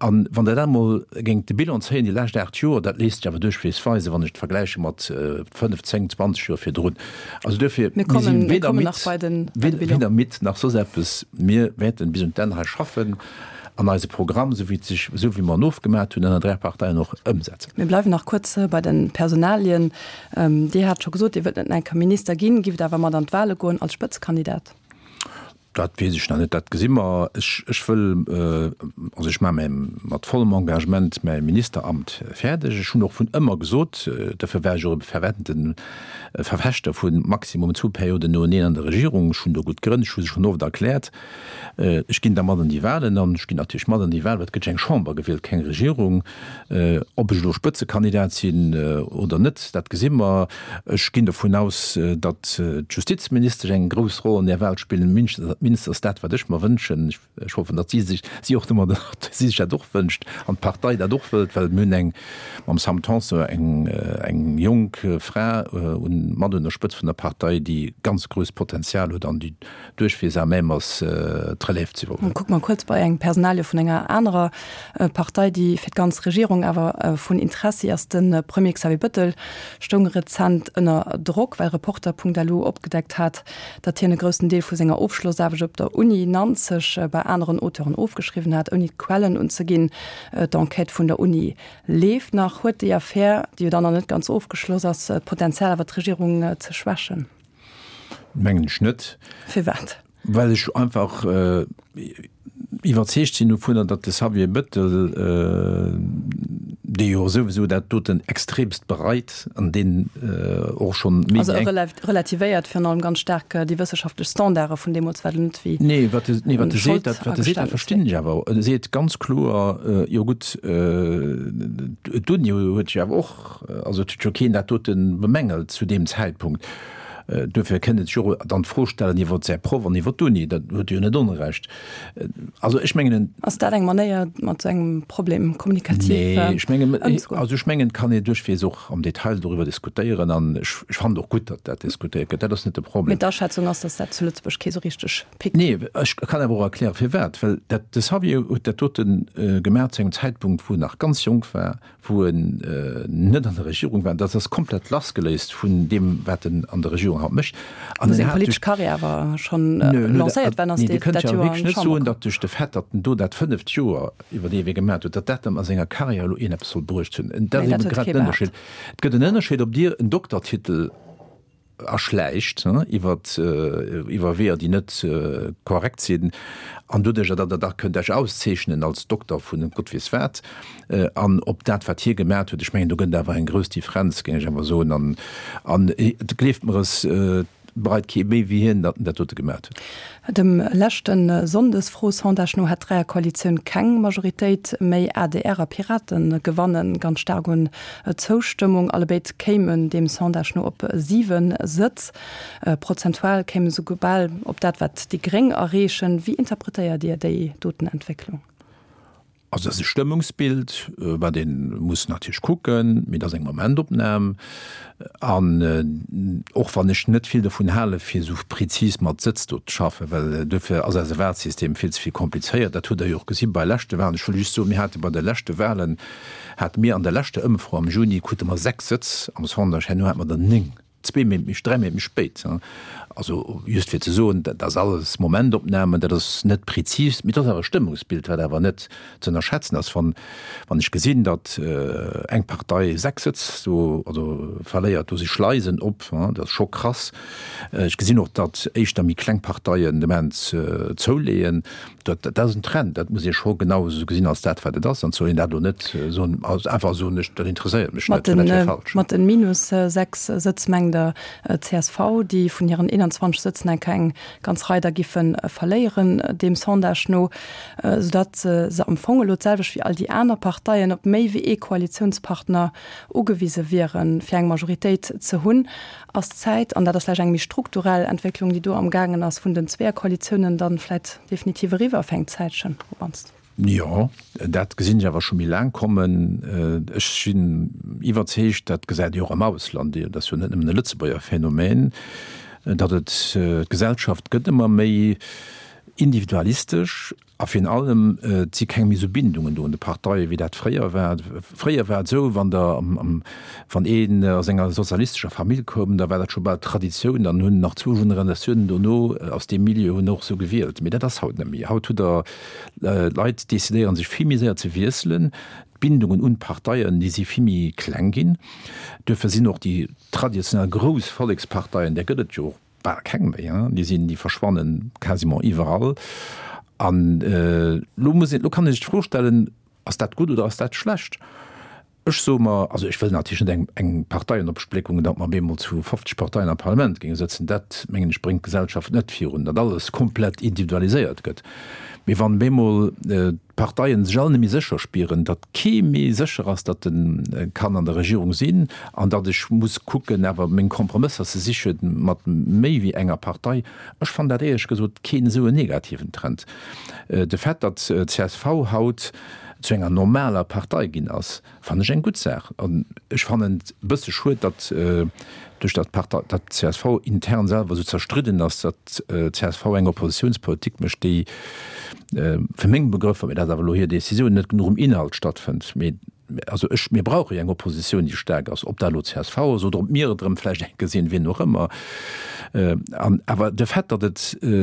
An wann Der dat emol géingt de Bilan zéien, déi lescht 8 Joer, dat léisst sech awer duerchweegs weisen, wann ech et vergläiche mat 5, 10, 20 Joer virdrun. Also duerfir, mir si weder midd, weder midd nach soss eppes. Mir wäerten bis un d'Enn hei schaffen an eise Programm, esou wéi et sech, esou wéi mer en ofgemat hunn ënner 3 Parteien, och ëmsetzen. Mir bleiwen nach kuerz bei de Personalien. Dir hat scho gesot, Dir wëllt net nach eng Kéier Minister ginn, giff et awer mat an d'Wahle goen als Spëtzekandidat? Dat weess ech nach net, dat gesi mer. Ech, ech wëll, also ech maache mäi, mat vollem Engagement mäi Ministeramt fäerdeg. Ech hunn och vun ëmmer gesot, dofir war ech och e fervente Verfechter vu maximum zwou Perioden noeneen an der Regierung, ech hunn do gutt Grënn, ech hu se schonn oft erkläert, ech ginn da mat an déi Wahlen an ech ginn natierlech mat an déi Wahlen, well et gëtt jo eng Chamber gewielt, keng Regierung. Ob ech elo Spëtzekandidat sinn oder net, dat gesi mer. Ech ginn dovun aus, datt d'Justizministesch eng grouss Roll an där Wahl spillen. D'minst ass dat, wat ech mer wënschen. Ech hoffen, datt si sech, si och domadder, datt si sech dat och wënscht an d'Partei dat och wëllt, well mir hunn eng, mam Sam Tanson eng, eng jonk Fra un, mat un der Spëtzt vun der Partei, déi ganz grousst Potenzial huet an déi duerchweess à même ass, d'Relève ze iwwerhuelen. Kucke mer kuerz bei eng Personalie vun enger anerer Partei, déi fir d'ganz Regierung awer vun Interessi ass. De Premier Xavier Bëttel stoung rezent ënner Drock, well Reporter.lu opgedeckt hat, datt hien e groussen Deel vu senger Ofschlossaarbecht op der Uni Nanzeg bei aneren Auteuren ofgeschriwwen hat, ouni d'Quellen unzeginn. D'Enquête vun der Uni leeft nach. Huet déi Affär, déi jo dann nach net ganz ofgeschloss ass, d'Potenzial awer d'Regierung ze schwächen? Mengen ech net. Firwat? Well ech einfach iwwerzeegt sinn dovunner, datt de Xavier Bettel, dee jo souwisou dat doten extremst bereit an deen och schonn méi wéi eng. Also e relativéiert virun allem ganz staark déi wëssenschaftlech Standarde vun deemools, wat elo net wéi. Nee, wat e, nee, wat e seet, dat, wat e seet, dat verstinn ech awer. E seet ganz kloer, jo gutt, d'Uni huet jo awer och, also et huet jo keen dat dote bemängelt zu deem Zäitpunkt. Duerfir kënnt et sech och dann d'Fro stellen iwwer säi Proff an iwwer d'Uni. Dat huet e jo net Onrecht. Also ech mengen en. Ass dat eng Manéier, mat esou engem Problem kommunikativ ëmzegoen? Nee, ech mengen, also ech mengen, et kann ee duerchweegs och am Detail doriwwer diskutéieren an ech fannen och gutt, datt dat diskutéiert gëtt. Dat ass net de Problem. Mee d'Aschätzung ass, datt dat zu Lëtzebuerg kee sou richteg pickt. Nee, ech kann awer och erklären, firwat. Well dat, de Xavier huet dat dote gemaach zu engem Zäitpunkt, wou en nach ganz jonk war, wou en net an der Regierung war, dat ass komplett lassgeléist vun deem, wat en an der Regierung haut mécht. An seng politesch Karriär awer schonn lancéiert war, ass dat Joer an d'Chamber komm. Dir kënnt jo wierklech net soen, datt duerch de Fait, datt en do dat fënneft Joer iwwer dee Wee gemaat huet, datt dat em a senger Karriär elo iergendepes soll bruecht hunn. Dat ass eben grad den Ënnerscheed. Et gëtt en Ënnerscheed, ob Dir en Doktertitel erschläicht iwwer iwwer Weeër, déi net korrekt sinn, an doduercher, datt Der da kënnt Iech auszeechnen als Dokter vun Gott weess wat, an ob dat, wat hie gemat huet, ech mengen, do gëtt et awer eng grouss Differenz, géing ech awer soen, an an gleeft mer es, bereit kee méi wéi hien, datt en dat dote gemat huet. Dem leschte Sonndesfro-Sondage no hätt d'Dräierkoalitioun keng Majoritéit méi. Adr a Piraten gewanne ganz staark un Zoustëmmung. Allebéid kéimen deem Sondage no op 7 Sëtz. Prozentual kéime se souguer bal op dat, wat déi Gréng erreechen. Wéi interpretéiert Dir déi doten Entwécklung? Also dat ass e Stëmmungsbild, wat ee muss natierlech kucken, mee dat ass eng Momentopnam. An och wann ech net vill dovun hale fir esou prezis mat Sëtz do ze schaffen, well duerfir ass eise Wahlsystem vill ze vill komplizéiert, dat hutt Der jo och gesi bei leschte Wahlen. Ech wëll just soen, mir hate bei de leschte Wahlen, hate mir an der leschter Ëmfro am Juni, krute mer 6 Sëtz am Sondage, herno hate mer der 9. Zwee Méint méi, dräi Méint méi spéit. Also just fir ze soen, dat ass alles Momentopnamen, dat ass net prezis, mee et ass awer e Stëmmungsbild, wat awer net ze ënnerschätzen ass. Wann, wann ech gesinn, datt eng Partei 6 Sëtz do, also verléiert, do si Schleisen op, dat ass scho krass. Ech gesinn och, datt éischter méi kleng Parteien de Moment zouleeën. Dat, dat ass en Trend, dat muss ee scho genau esou gesinn als dat, wat et ass. An soll een dat elo net soen, also einfach soen, ech, dat interesséiert mech net, well dat wier falsch. Mat den minus 6 Sëtz mengt Der csv, déi vun hiren 21 Sëtzen enk eng ganz Rei der giffe verléieren, deem Sondage no, soudatt se am Fong elo d'selwecht wéi all déi aner Parteien op méi wéi ee Koalitiounspartner ugewise wieren, fir eng Majoritéit ze hunn. Ass d'Zäit, an dat ass vläicht eng méi strukturell Entwécklung, déi do amgaangen ass, vun den Zweeërkoalitiounen dann vläicht definitiv eriwwer fir eng Zäitchen op mannst? Jo, dat gesinn ech awer scho méi laang kommen. Ech sinn iwwerzeegt, dat gesäit ee och am Ausland, dat ass jo net nëmmen e Lëtzebuerger Phänomen, datt et, d'Gesellschaft gëtt ëmmer méi individualistesch A virun allem, et si keng méi esou Bindungen do un de Parteien, wéi dat fréier war. Fréier war et esou, wann der am, wann een aus enger sozialistescher Famill koum, da war dat scho bal Traditioun, dann hunn nach zwou Generatiounen dono aus deem Milieu hunn och esou gewielt. Mee dat ass haut net méi. Haut hutt Der, d'Leit decidéiere sech vill méi séier ze wiesselen. D'Bindungen un d'Parteien, déi si vill méi kleng ginn. Duerfir sinn och déi traditionell grouss Volleksparteien, där gëtt et jo och Bal keng méi, hein, déi sinn, déi verschwannen quasiment iwwerall. An elo muss een, elo kann ee sech d'Fro stellen, ass dat gutt oder ass dat schlecht? Ech soe mer, also ech wëll natierlech net eng, eng Parteienopspléckung, datt mer op eemol zu 50 Parteien am Parlament géinge sëtzen. Dat, mengen ech, bréngt d'Gesellschaft net virun, datt alles komplett individualiséiert gëtt. Mee wann op eemol d'Parteien sech all net méi sécher spieren, datt kee méi sécher ass, datt e kann an der Regierung sinn an datt ech muss kucken, awer meng Kompromësser ze siche mat méi wéi enger Partei, ech fannen dat éierlech gesot keen esou en negativen Trend. De Fait, datt csv haut zu enger normaler Partei ginn ass, fannen ech eng gutt Saach. An ech fannen et e bësse schued, datt duerch datt d'Partei, datt d'CSV intern selwer esou zerstridden ass, datt d'CSV eng Oppositiounspolitik mécht, déi fir meng Begrëffer, mee dat ass awer elo hir Décisioun, net genuch um Inhalt stattfënnt. Mee also ech, mir brauche jo eng Oppositioun, déi staark ass, ob dat elo csv ass oder ob mir et erëm vläicht eng Kéier sinn, wien och ëmmer. An awer de Fait, datt et,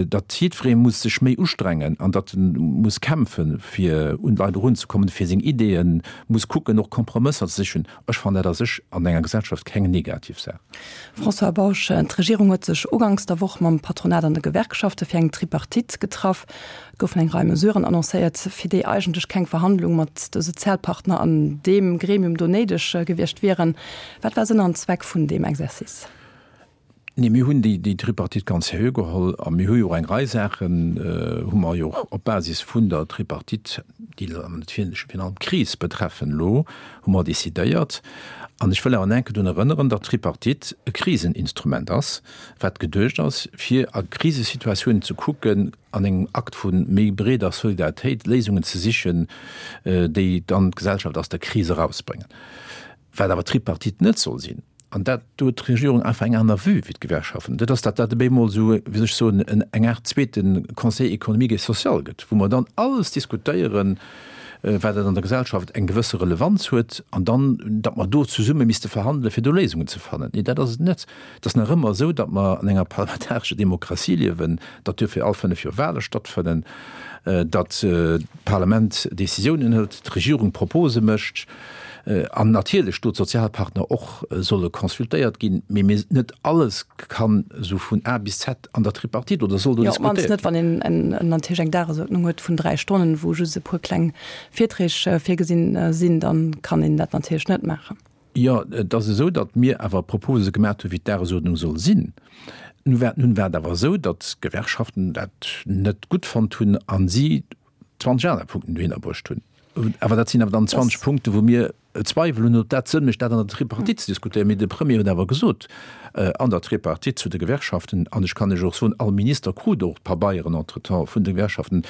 datt jiddweree muss sech méi ustrengen an datt e muss kämpfen, fir un d'Leit erunzekommen, fir seng Ideeën muss kucken, och Kompromësser ze sichen, ech fannen dat a sech an enger Gesellschaft keng negativ Saach. François Bausch, D'Regierung huet sech uganks der Woch mam Patronat an de Gewerkschafte fir eng Tripartite getraff. Et goufen eng Rei Mesuren annoncéiert, fir déi eigentlech keng Verhandlung mat de Sozialpartner an deem Gremium do néideg gewiescht wieren. Wat war Sënn an Zweck vun deem Exercice? Nee, mir hunn déi Tripartite ganz seriö geholl a mir hu jo och eng Rei Saachen, hu mer jo och op Basis vun der Tripartite, déi natierlech virun allem d'Kris betreffen elo, hu mer decidéiert. An ech wëll awer nach eng Kéier drun erënneren, datt d'Tripartite e Kriseninstrument ass, wat geduecht ass, fir a Krisesituatiounen ze kucken, an engem Akt vu méi breeder Solidaritéit Léisungen ze sichen, déi dann d'Gesellschaft aus der Kris erausbréngen. Wat awer d'Tripartite net soll sinn, an dat, do huet d'Regierung einfach eng aner Vue wéi d'Gewerkschaften, dat ass, datt dat op eemol esou, wéi soll ech soen, eng Aart zweete Conseil économique et social gëtt, wou mer dann alles diskutéieren, wat an der Gesellschaft eng gewësse Relevanz huet, an dann, datt mer do zesumme misste verhandelen, fir do Léisungen ze fannen. Nee, dat ass et net. Et ass nach ëmmer esou, datt mer an enger parlamentarescher Demokratie liewen, datt duerfir all fënnef Joer Wahle stattfënnen, datt d'Parlament Décisiounen hëlt, d'Regierung Propose mécht an natierlech do d'Sozialpartner och solle consultéiert ginn. Mee mir, net alles kann esou vun A bis Z an der Tripartite oder soll do diskutéiert ginn. Jo, op d'mannst net, wann een natierlech eng Dagesuerdnung huet vun dräi Stonnen, wou just e puer kleng Virträg virgesinn sinn, da kann een dat natierlech net maachen. Jo, et ass esou, datt mir awer Propose gemaat hu wéi d'Dagesuerdnung soll sinn. Nun war, nun war et awer esou, datt d'Gewerkschaften dat net gutt fonnt hunn a si 20 aner Punkten dohinner bruecht hunn. Awer dat sinn awer dann 20 Punkte wou mir Zweiwel hunn, ob dat Sënn mécht, dat an der Tripartite ze diskutéieren. Mee de Premier huet awer gesot an der Tripartite zu de Gewerkschaften, an ech kann lech och soen, all Minister krut och d'Pabeieren entretemps vun de Gewerkschaften,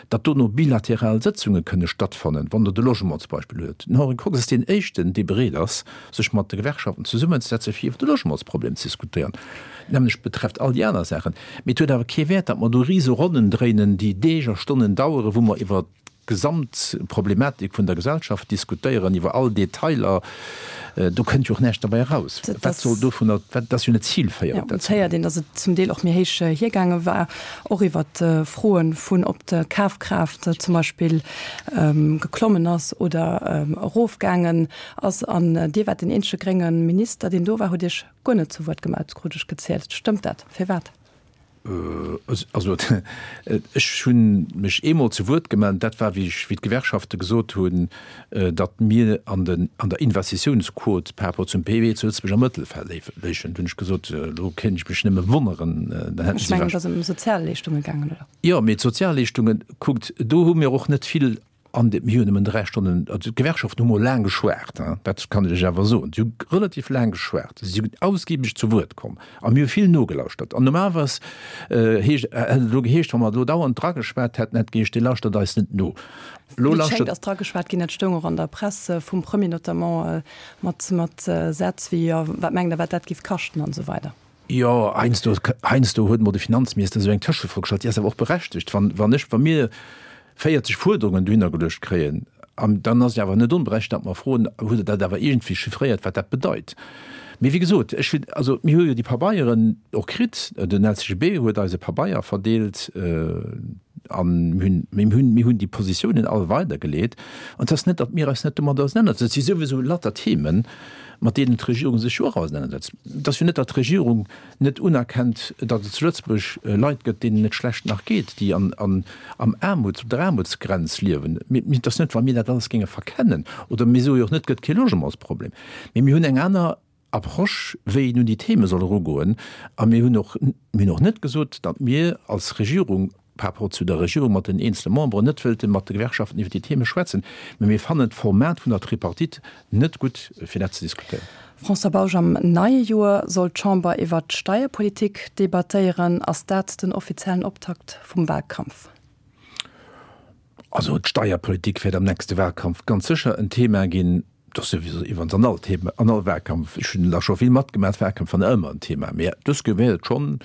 datt dono bilateral Sëtzunge kënne stattfannen, wann Der de Logement zum Beispill huet. Den Henri Kox ass deen éischten, dee bereet ass, sech mat de Gewerkschaften zesummenzesetzen, fir iwwer de Logementsproblem ze diskutéieren. D'nämmlecht betrefft all déi aner Saachen. Mee et huet awer kee Wäert, datt mer do rise Ronnen dréinen, déi Deeg a Stonnen daueren, wou mer iwwer d'Gesamtproblematik vun der Gesellschaft diskutéieren, iwwer all Detailer. Do kënnt jo och näischt derbäi eraus. Wat soll dovunner, dat ass jo net zilféierend. Jo, et héiert een, datt et zum Deel och méi héich hiergaange war, och iwwer Froe vun, ob d'Kafkraaft zum Beispill geklommen ass oder erofgaangen ass. An Dir waart deen eenzege grénge Minister, deen do war, hutt Iech guer net zu Wuert gemellt, krut ech gezielt. Stëmmt dat? Firwat? Also ech hu mech eemol zu Wuert gemellt, dat war wéi ech, wéi d'Gewerkschafte gesot hunn, datt mir an den, an der Investitiounsquot par rapport zum PIB zu Lëtzebuerg am Mëttelfeld léichen. Do hunn ech gesot, elo kéint ech mech nëmme wonneren, dann hätten si. Ech mengen, et ass ëm Sozialleeschtunge gaangen, oder? Jo, mee d'Sozialleeschtungen, kuckt, do hu mir och net vill An mir hunn nëmmen 3 Stonnen, also d'Gewerkschaften hu mol laang geschwat, dat kann ech lech awer soen, si hu relativ laang geschwat, si sinn ausgiebeg zu Wuert komm a mir hu vill nogelauschtert. An normalerweis heescht, hätt et elo geheescht, wa mer elo dauernd drageschwat hätten, hätt geheescht, Dir lauschtert eis net no. Elo lauschtert. Wéi et schéngt, ass drageschwat ginn, dat stoung och an der Press vum Premier notamment, mat, mat Sätz wéi, jo, wat mengt Der, wat dat géif kaschten an esou weider. Jo, heiansdo, heiansdo huet emol de Finanzminister esou eng Tëschefro gestallt, déi ass awer och berechtegt. Wann, wann ech, wa mir 40 Fuerderungen dohinner geluecht kréien, an dann ass et awer net onberechtegt, datt mer froen, Hutt Der dat awer iergendwéi chiffréiert, wat dat bedeit? Mee wéi gesot, ech hunn, also mir hu jo déi Pabeieren och kritt, den LCGB huet eis e Pabeier verdeelt. A mir hunn, mir hunn déi Positiounen all weidergeleet. An et ass net, datt mir eis net domadder ausenanersetzen. Et si souwisou lauter Themen, mat deenen d'Regierung sech jo och ausenanersetzt. Et ass jo net, datt d'Regierung net unerkennt, datt et zu Lëtzebuerg Leit gëtt, deenen et schlecht nach geet, déi an, an, am Aarmuts, op der Aarmutsgrenz liewen. Mir, et ass net, wa mir dat alles géinge verkennen. Oder mir soe jo och net, et gëtt kee Logementsproblem. Mee mir hunn eng aner Approche, wéi een un déi Theme soll erugoen. A mir hunn och, mir hunn och net gesot, datt mir als Regierung par rapport zu der Regierung mat den eenzele Memberen net wëllte mat de Gewerkschaften iwwer déi Theme schwätzen. Mä mir fannen d'Format vun der Tripartite net gutt, fir dat ze diskutéieren. François Bausch, Am neie Joer soll d'Chamber iwwer d'Steierpolitik debattéieren. Ass dat den offiziellen Optakt vum Wahlkampf? Also d'Steierpolitik wäert am nächste Wahlkampf ganz sécher en Thema ginn. Dat ass souwisou iwwerens an all Thema, an all Wahlkampf. Ech hunn der scho vill matgemaach, Wahlkämpf waren ëmmer en Thema. Mä dës Kéier wäert et schonn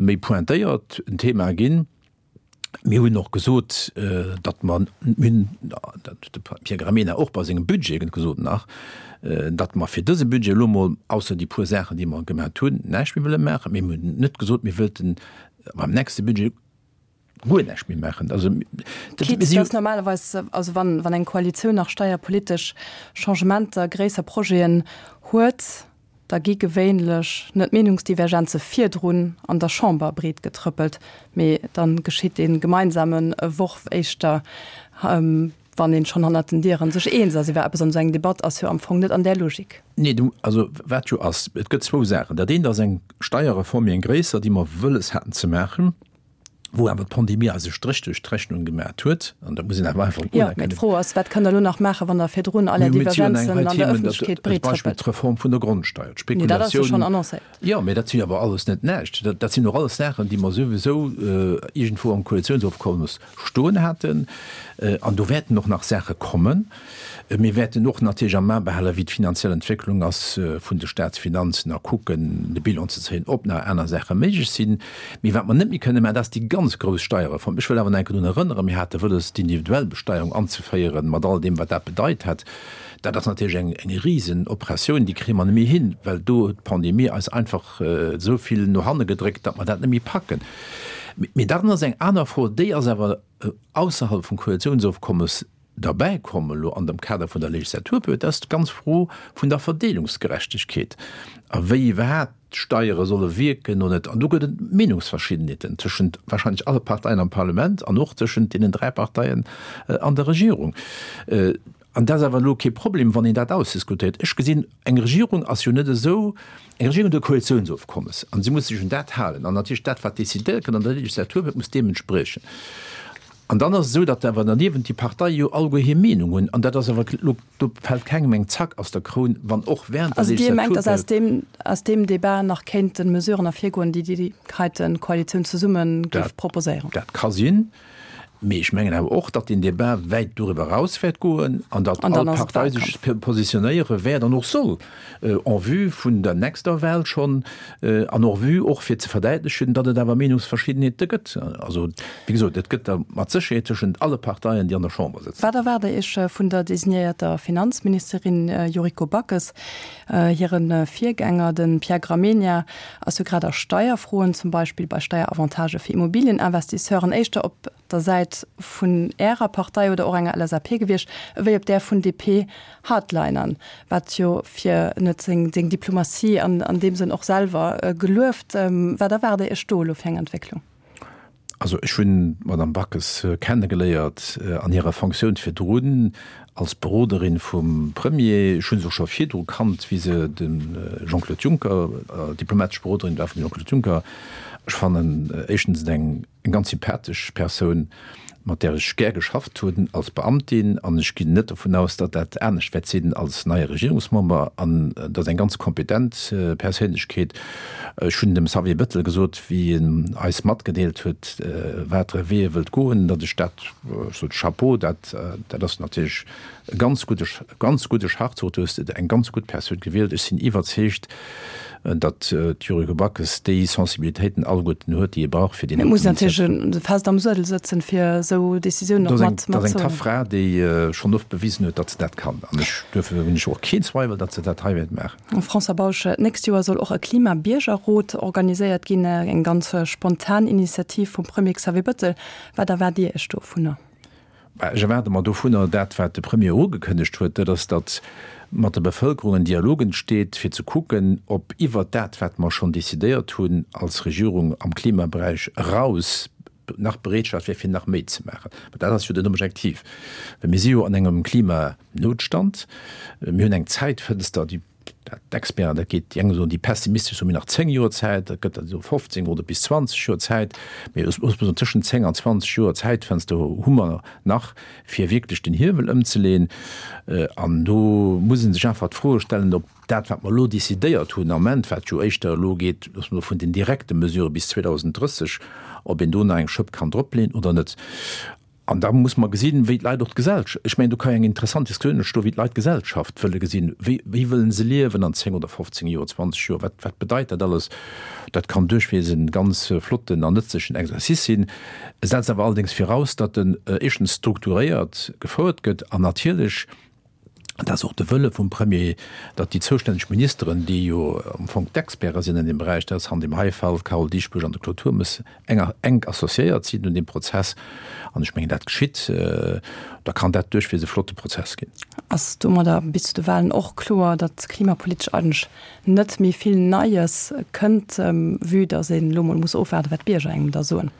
méi pointéiert en Thema ginn. Mir hunn och gesot, datt mer, mir hunn, dat huet de Pierre Gramegna och bei sengem Budget gesot nach, datt mer fir dëse Budget elo emol, ausser déi puer Saachen, déi mer gemat hunn, näischt méi wëlle maachen. Mee mir hunn net gesot, mir wëllten beim nächste Budget guer näischt méi maachen. Also, dat, mir si. Dass normalerweis, also wann, wann eng Koalitioun nach steierpolitesch Changementer, gréisser Projeten huet, da gi gewéinlech net d'Meenungsdivergenze virdrun an der Chamber breet getrëppelt, mee da geschitt dee gemeinsame Worf éischter, wann een schonn hannert den Dieren sech eens ass iwwer eppes. An esou eng Debatt ass jo am Fong net an där Logik. Nee, du, also wat jo ass, et gëtt zwou Saachen. Dat eent ass eng Steierreform, méi eng gréisser, déi mer wëlles haten ze maachen. wou awer d'Pandemie eis e Stréch duerch d'Rechnung gemat huet, an dat muss een awer einfach unerkennen. Jo, mee d'Fro ass, Wat kënnt Der elo nach maachen, wann Der virdrun all Är Divergenzen an der Ëffentlechkeet breet trëppelt? Beispill d'Reform vun der Grondsteier, d'Spekulatioun. Nee, dat ass jo schonn annoncéiert. Jo, mee dat si awer alles net näischt. Dat sinn och alles Saachen, déi mer souwisou iergendwou am Koalitiounsofkommes stoen haten. An do wäerten och nach Saache kommen. Mir wäerten och natierlech am A behalen, wéi d'finanziell Entwécklung ass vun de Staatsfinanzen a kucken, de Bilan ze zéien, ob nach aner Saache méiglech sinn. Mee wat mer net méi kënne maachen, dat ass déi ganz grouss Steierreform. Ech wëll awer nach eng Kéier drun erënneren, Mir hate wëlles, d'individuell Besteierung anzeféieren, mat all deem, wat dat bedeit hätt. Dat ass natierlech eng, eng Risenoperatioun, déi kréie mer net méi hin, well do huet d'Pandemie eis einfach esou vill no hanne gedréckt, datt mer dat net méi packen. Mee dann ass eng aner Fro, déi ass awer ausserhalb vum Koalitiounsofkommes derbäi komm elo an dem Kader vun der Legislaturperiod, dat ass d'ganz Fro vun der Verdeelungsgerechtegkeet a wéi iwwerhaapt d'Steiere solle wierken oder net. An do gëtt et Meenungsverschiddenheeten tëschent wahrscheinlech alle Parteien am Parlament an och tëschent deenen 3 Parteien an der Regierung. An dat ass awer elo kee Problem, wann een dat ausdiskutéiert. Ech gesinn, eng Regierung ass jo net esou, eng Regierung huet e Koalitiounsofkommes an si muss sech un dat halen. An natierlech dat, wat decidéiert gëtt an der Legislatur, muss deem entspriechen. An dann ass et esou, datt awer derniewent déi Parteie jo alleguer hir Meenung hunn. An dat ass awer elo, do fält kengem eng Zack aus der Kroun, wann och während der Also Dir mengt, datt aus deem, aus deem Débat nach kéinte Mesuren ervirgoen, déi déi heite Koalitioun zesumme géif proposéieren? Dat ka sinn. Mee ech mengen awer och, datt deen Débat wäit doriwwer eraus wäert goen an datt all Partei sech positionéiere wäert an och soll en vue vun der nächster Wahl schonn an en vue och fir ze verdäitlechen, datt et awer Meenungsverschiddenheete gëtt. Also, wéi gesot, et gëtt der mat Sécherheet tëschent alle Parteien, déi an der Chamber sëtzen. Wat erwaart Der Iech vun der designéierter Finanzministerin Yuriko Backes? Hire Virgänger, de Pierre Gramegna, ass jo grad a Steierfroen, zum Beispill bei Steieravantagë fir Immobilieninvestisseuren, éischter op der Säit vun Ärer Partei oder och enger LSAP gewiescht, ewéi op där vun DP-Hardlinern, wat jo fir en huet seng Diplomatie an deem Sënn och selwer gelueft. Wat erwaart Der Iech do elo fir eng Entwécklung? Also ech hunn d'Madame Backes kennegeléiert an hirer Fonctioun virdrun als Beroderin vum Premier. Ech hu se och scho virdru kannt, wéi se dem Jean-Claude Juncker, diplomatesch Beroderin war vum Jean-Claude Juncker. Ech fannen éischtens et eng ganz sympathesch Persoun, mat där ech gär geschafft hunn als Beamtin, an ech ginn net dovun aus, datt dat anescht wäert sinn als neie Regierungsmember. An et ass eng ganz kompetent Perséinlechkeet. Ech hunn dem Xavier Bettel gesot, wéi en eis matgedeelt huet, watere Wee e wëllt goen, datt ech dat, ech sot Chapeau, dat, dat ass natierlech e ganz gudde, ganz gudde Schachzuch, du hues eng ganz gutt Persoun gewielt. Ech sinn iwwerzeegt. Datt d'Yuriko Backes déi Sensibilitéiten alleguerten huet, déi ee brauch fir déi Et muss natierlech fest am Suedel sëtzen, fir esou Decisiounen och mat ze. Dat ass eng tough Fra, déi schonn oft bewisen huet, datt se dat kann. An ech, duerfir hunn ech och keen Zweiwel, datt se dat hei wäert maachen. François Bausch, D'nächst Joer soll och e Klima-Biergerrot organiséiert ginn, eng ganz spontan Initiativ vum Premier Xavier Bëttel. Wat erwaart Dir Iech dovunner? Ech erwaarde mer dovunner dat, wat de Premier ugekënnegt huet, dat ass, datt mat der Bevëlkerung en Dialog entsteet, fir ze kucken, ob iwwert dat, wat mer schonn decidéiert hunn als Regierung am Klimaberäich eraus, nach Bereetschaft wär, fir nach méi ze maachen. Well dat ass jo den Objektiv. Well mir si jo an engem Klimanotstand. Mir hunn eng Zäitfënster, déi D'Experten, dat geet, déi eng soen, déi pessimistesch soen, mir hunn nach 10 Joer Zäit, dat gëtt der déi soe 15 oder bis 20 Joer Zäit. Mee ech muss soen, tëschent 10 an 20 Joer Zäitfenster hu mer nach, fir wierklech den Hiewel ëmzeleeën. An do muss ee sech einfach d'Froe stellen, ob dat, wat mer elo decidéiert hunn am Ament, wat jo éischter elo geet, loosse mer soe vun den direkte Mesurë bis 2030, ob een do nach eng Schëpp kann dropleeën oder net. An da muss mer gesinn, wéi d'Leit och d'Gesellschaft, ech mengen, do ka jo eng interessant Diskussioun entstoen, wéi d'Leit d'Gesellschaft wëlle gesinn, wéi, wéi wëllen se liewen an 10 oder 15 Joer, 20 Joer, wat, wat bedeit dat alles? Dat kann duerchwees e ganz flotten an nëtzlechen Exercice sinn. E setzt awer allerdéngs viraus, datt en éischtens strukturéiert gefouert gëtt an natierlech, dat ass och de Wëlle vum Premier, datt déi zoustänneg Ministeren, déi jo am Fong d'Experte sinn an deem Beräich, dat ass an deem hei Fall d'Carole Dieschbourg an de Claude Turmes, enger enk associéiert sinn un deem Prozess. An ech mengen, dat geschitt. Da kann dat duerchwegs e flotte Prozess ginn. Ass domadder bis zu de Wahlen och kloer, datt klimapolitesch eigentlech net méi vill Neies kënnt, vue datt een elo mol muss ofwaarden, wat d'Bierger engem da soen?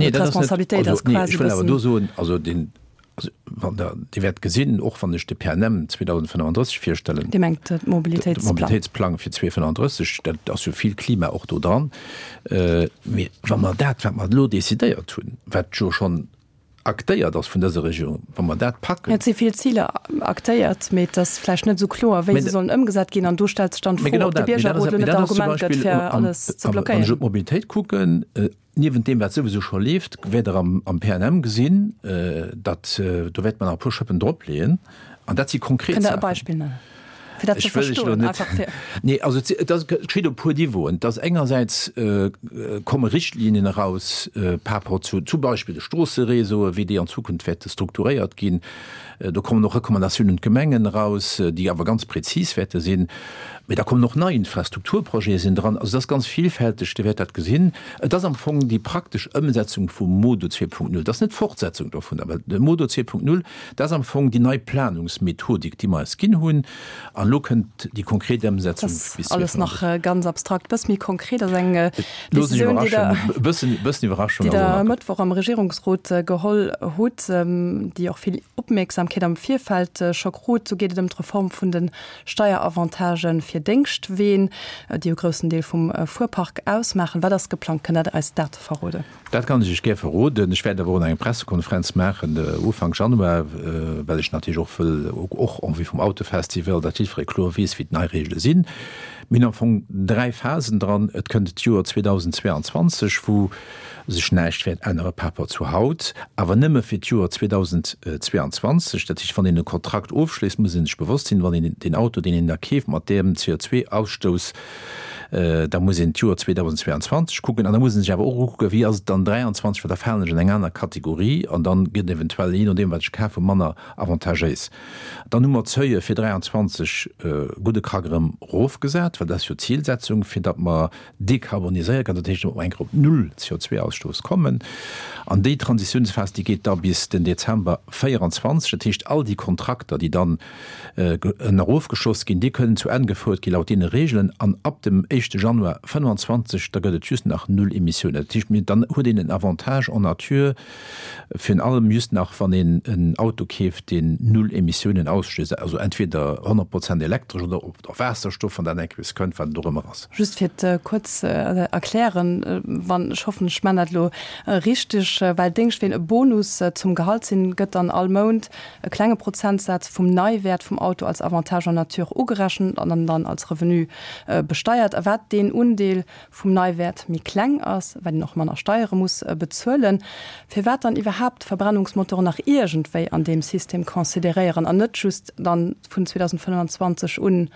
Nee, dat ass net, also nee, ech wëll awer do soen, also deen, Also, wann Der, Dir wäert gesinn, och wann ech de PNM 2035 virstellen, Dir mengt de Mobilitéitsplang. De Mobilitéitsplang fir 2035, dat ass jo vill Klima och do dran. Mee wa mer dat, wat mer elo decidéiert hunn, wat jo schonn aktéiert ass vun dëser Regierung, wa mer dat packen. Et si vill Ziler aktéiert, mee et ass vläicht net esou kloer, wéi se sollen ëmgesat ginn. An do stellt sech dann d'Fro, ob de Biergerrot elo net d'Argument gëtt, fir alles ze blockéieren. Wann ech op d'Mobilitéit kucken, Niewent deem, wat souwisou scho leeft, wäert Der am PNM gesinn, datt do wäerte mer nach e puer Schëppen dropleeën. An dat si konkret Saachen. Kënnt Der e Beispill nennen, fir dat ze verstoen? Einfach fir. Nee, also et ass, et geschitt op e puer Niveauen. Et ass engersäits komme Richtlinien eraus par rapport zu zum Beispill de Stroosseréseaue, wéi déi an Zukunft wäerte strukturéiert ginn. Do kommen och Recommandatiounen un d'Gemengen eraus, déi awer ganz prezis wäerte sinn. Mee da kommen och nei Infrastrukturprojete sinn dran. Also et ass ganz vielfälteg, Dir wäert dat gesinn. Et ass am Fong déi praktesch Ëmsetzung vum MoDo 2.0. Dat ass net d'Fortsetzung dovunner, well de MoDo 2.0, dat ass am Fong déi nei Planungsmethodik, déi mer eis ginn hunn. An elo kënnt déi konkret Ëmsetzung bis 2035. Dat ass alles nach ganz abstrakt. Bëss méi konkret ass eng Decisioun, déi Der, déi Der e Mëttwoch am Regierungsrot geholl hutt, déi och vill Opmierksamkeet am Virfeld scho krut. Do geet et ëm d'Reform vun de Steieravantagë fir Déngschtween, déi e groussen Deel vum Fuerpark ausmaachen. Wat ass geplangt? Kënnt Der eis dat verroden? Dat kann ech Iech gär verroden. Ech wäert awer och nach eng Pressekonferenz maachen Ufank Januar, well ech natierlech och wëll, och en vue vum Autofestival, datt jiddweree kloer weess, wéi d'nei Reegele sinn. Mir hunn am Fong 3 Phasen dran. Et kënnt d'Joer 2022, wou sech näischt wäert ännere par rapport zu haut, awer nëmme fir d'Joer 2022. Dat heescht, wann een e Kontrakt ofschléisst, muss ee sech bewosst sinn, wann een deen Auto, deen een da keeft, mat deem CO2-Ausstouss, da muss een d'Joer 2022 kucken. An da muss ee sech awer och ukucken, wéi ass et dann 2023, well da falen ech an eng aner Kategorie an dann gëtt eventuell, jee nodeem wat ech kafen, manner avantagéis. Dann hu mer d'Seuille fir 23 gudde Krack erëm erofgesat, well dat ass jo d'Zilsetzung, fir datt mer dekarboniséiere kënnen, dat heescht, datt mer eng Kéier op null CO2-Ausstouss kommen. An déi Transitiounsphas, déi geet da bis den Dezember 24. Dat heescht, all déi Kontrakter, déi dann erofgeschloss ginn, déi kënnen zu Enn gefouert gi laut deene Regeln. An ab dem éischte Januar 25, da gëtt et just nach null Emissiounen. Dat heescht, dann huet een en Avantage en nature, Virun allem just nach wann een en Auto keeft deen null Emissiounen ausstéisst, also entweder 100 Prozent elektresch oder op Waasserstoff, wann dat eng Kéier kënnt, wat et och ëmmer ass. Just fir et kuerz ze erklären, wann, ech hoffen ech man dat elo richteg, well Déngschtween e Bonus zum Gehalt sinn, gëtt dann all Mount e klenge Prozentsaz vum Neiwäert vum Auto als Avantage en nature ugerechent an dann als Revenu besteiert. A wat deen Undeel vum Neiwäert méi kleng ass, well een och manner Steiere muss bezuelen, firwat dann iwwerhaapt d'Verbrennungsmotoren nach iergendwéi an deem System consideréieren an net just dann vun 2025 un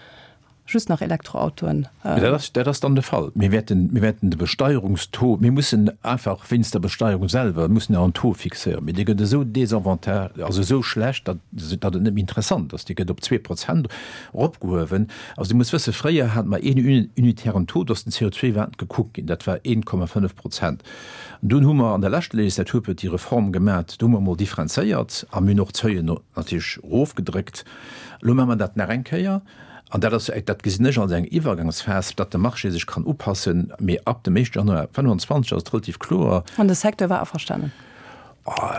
just nach Elektroautoen. Dat ass, dat ass dann de Fall. Mir wäerten, mir wäerten de Besteierungstaux, mir mussen einfach wéinst der Besteierung selwer, mussen en Taux fixéieren, mee dee gëtt esou désavantage, also esou schlecht, datt, datt et net méi interessant ass. Dee gëtt op 2% eropgehuewen. Also Dir musst wëssen, fréier hate mer een unitären Taux, do ass den CO2-Wert gekuckt ginn, dat war 1,5 Prozent. An dunn hu mer an der leschter Legislaturperiod déi Reform gemat, do hu mer emol differenzéiert a mir hunn och d'Seuilen natierlech erofgedréckt. Elo maache mer dat nach eng Kéier an dat ass, dat gesinn ech als eng Iwwergangsphas, datt de Marché sech kann upassen. Mee ab dem éischte Januar 25 ass et relativ kloer. An de Secteur war averstanen?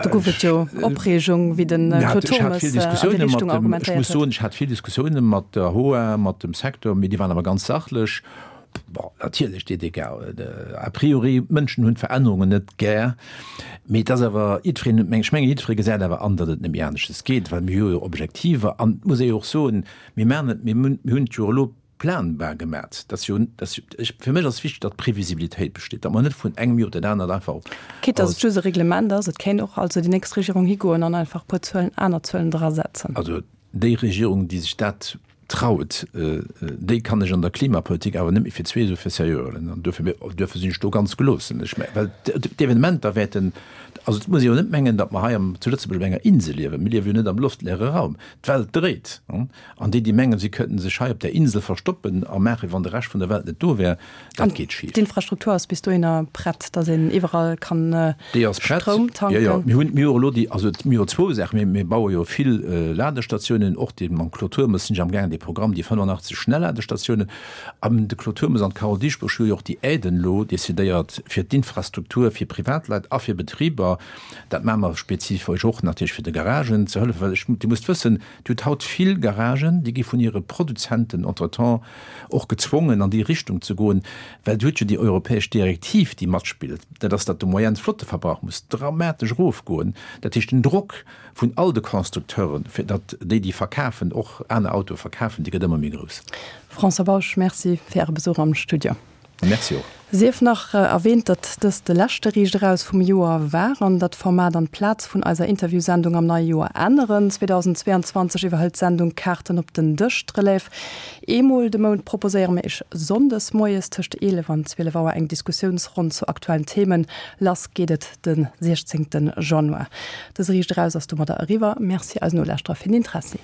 Do gouf et jo Opreegung, wéi de Claude Turmes an déi Richtung argumentéiert huet. Ech muss soen, ech hat vill Diskussioune mat der HOA, mat dem Secteur, mee déi waren awer ganz sachlech. Bon, natierlech, déi Dégâts, a priori, d'Mënschen hunn d'Verännerungen net gär, mee et ass awer, jiddwereen, ech mengen, jiddweree gesäit awer an, datt et net méi aneschters geet, well mir hu jo Objektiver. An et muss ee jo och soen, mir maachen et, mir hunn et jo elo planbar gemat. Dat ass jo, dat ass, ech, fir mech ass wichteg, datt Previsibilitéit besteet, datt mer net vun engem Joer op dat anert einfach op. Quitte datt et just e Reglement ass, et kéint och also déi nächst Regierung higoen an einfach e puer Zuelen, aner Zuelen drasetzen. Also déi Regierung, déi sech dat traut, déi kann ech an der Klimapolitik awer net méi fir zwee esou fir seriö huelen. An duerfir, duerfir sinn ech do ganz geloossen. Ech mengen, well d'Evenementer wäerten, also et muss ee jo net mengen, datt mer hei am, zu Lëtzebuerg op enger Insel liewen. Mir liewe jo net am loftleere Raum. D'Welt dréit. An déi, déi mengen, si könnten sech hei op där Insel verstoppen a maachen, wéi wann de Rescht vun der Welt net do wär, dat geet schif. D'Infrastruktur ass bis dohinner prett, datt een iwwerall kann Stroum tanken? Jo, jo. Mir hunn, mir hu elo déi, also mir hu zwou Saachen. Mir, mir baue jo vill Ladestatiounen, och dee mam Claude Turmes sinn ech amgaangen, dee Programm, déi 85 Schnellladestatiounen. An de Claude Turmes an d'Carole Dieschbourg hu jo och déi Aiden elo decidéiert fir d'Infrastruktur fir Privatleit a fir Betriber. Dat maache mer spezifesch och natierlech fir de Garagen ze hëllefen, well ech, Dir musst wëssen, Dir hutt haut vill Garagen, déi gi vun hire Produzenten entretemps och gezwongen, an déi Richtung ze goen, well Dir hutt jo déi europäesch Direktiv, déi matspillt, dat ass, datt de Moyenne-Flotteverbrauch muss dramatesch erofgoen. Dat heescht, den Drock vun all de Constructeuren, fir datt déi, déi verkafen, och aner Autoe verkafen, dee gëtt ëmmer méi grouss. François Bausch, Merci fir Äre Besuch am Studio. Merci och. Sief nach erwähnt, datt dëst de leschte Riicht Eraus vum Joer war an datt d'Format an d'Plaz vun eiser Interviewsendung am neie Joer änneren. 2022 iwwerhëlt d'Sendung Kaarten op den Dësch d'Relève. Eemol de Mount proposéiere mir Iech sonndes moies tëscht 11 an 12 Auer eng Diskussiounsronn zu aktuellen Themen. Lass geet et de 16 Januar. Dëse Riicht Eraus ass domadder eriwwer. Merci eisen Nolauschterer fir den Interessi.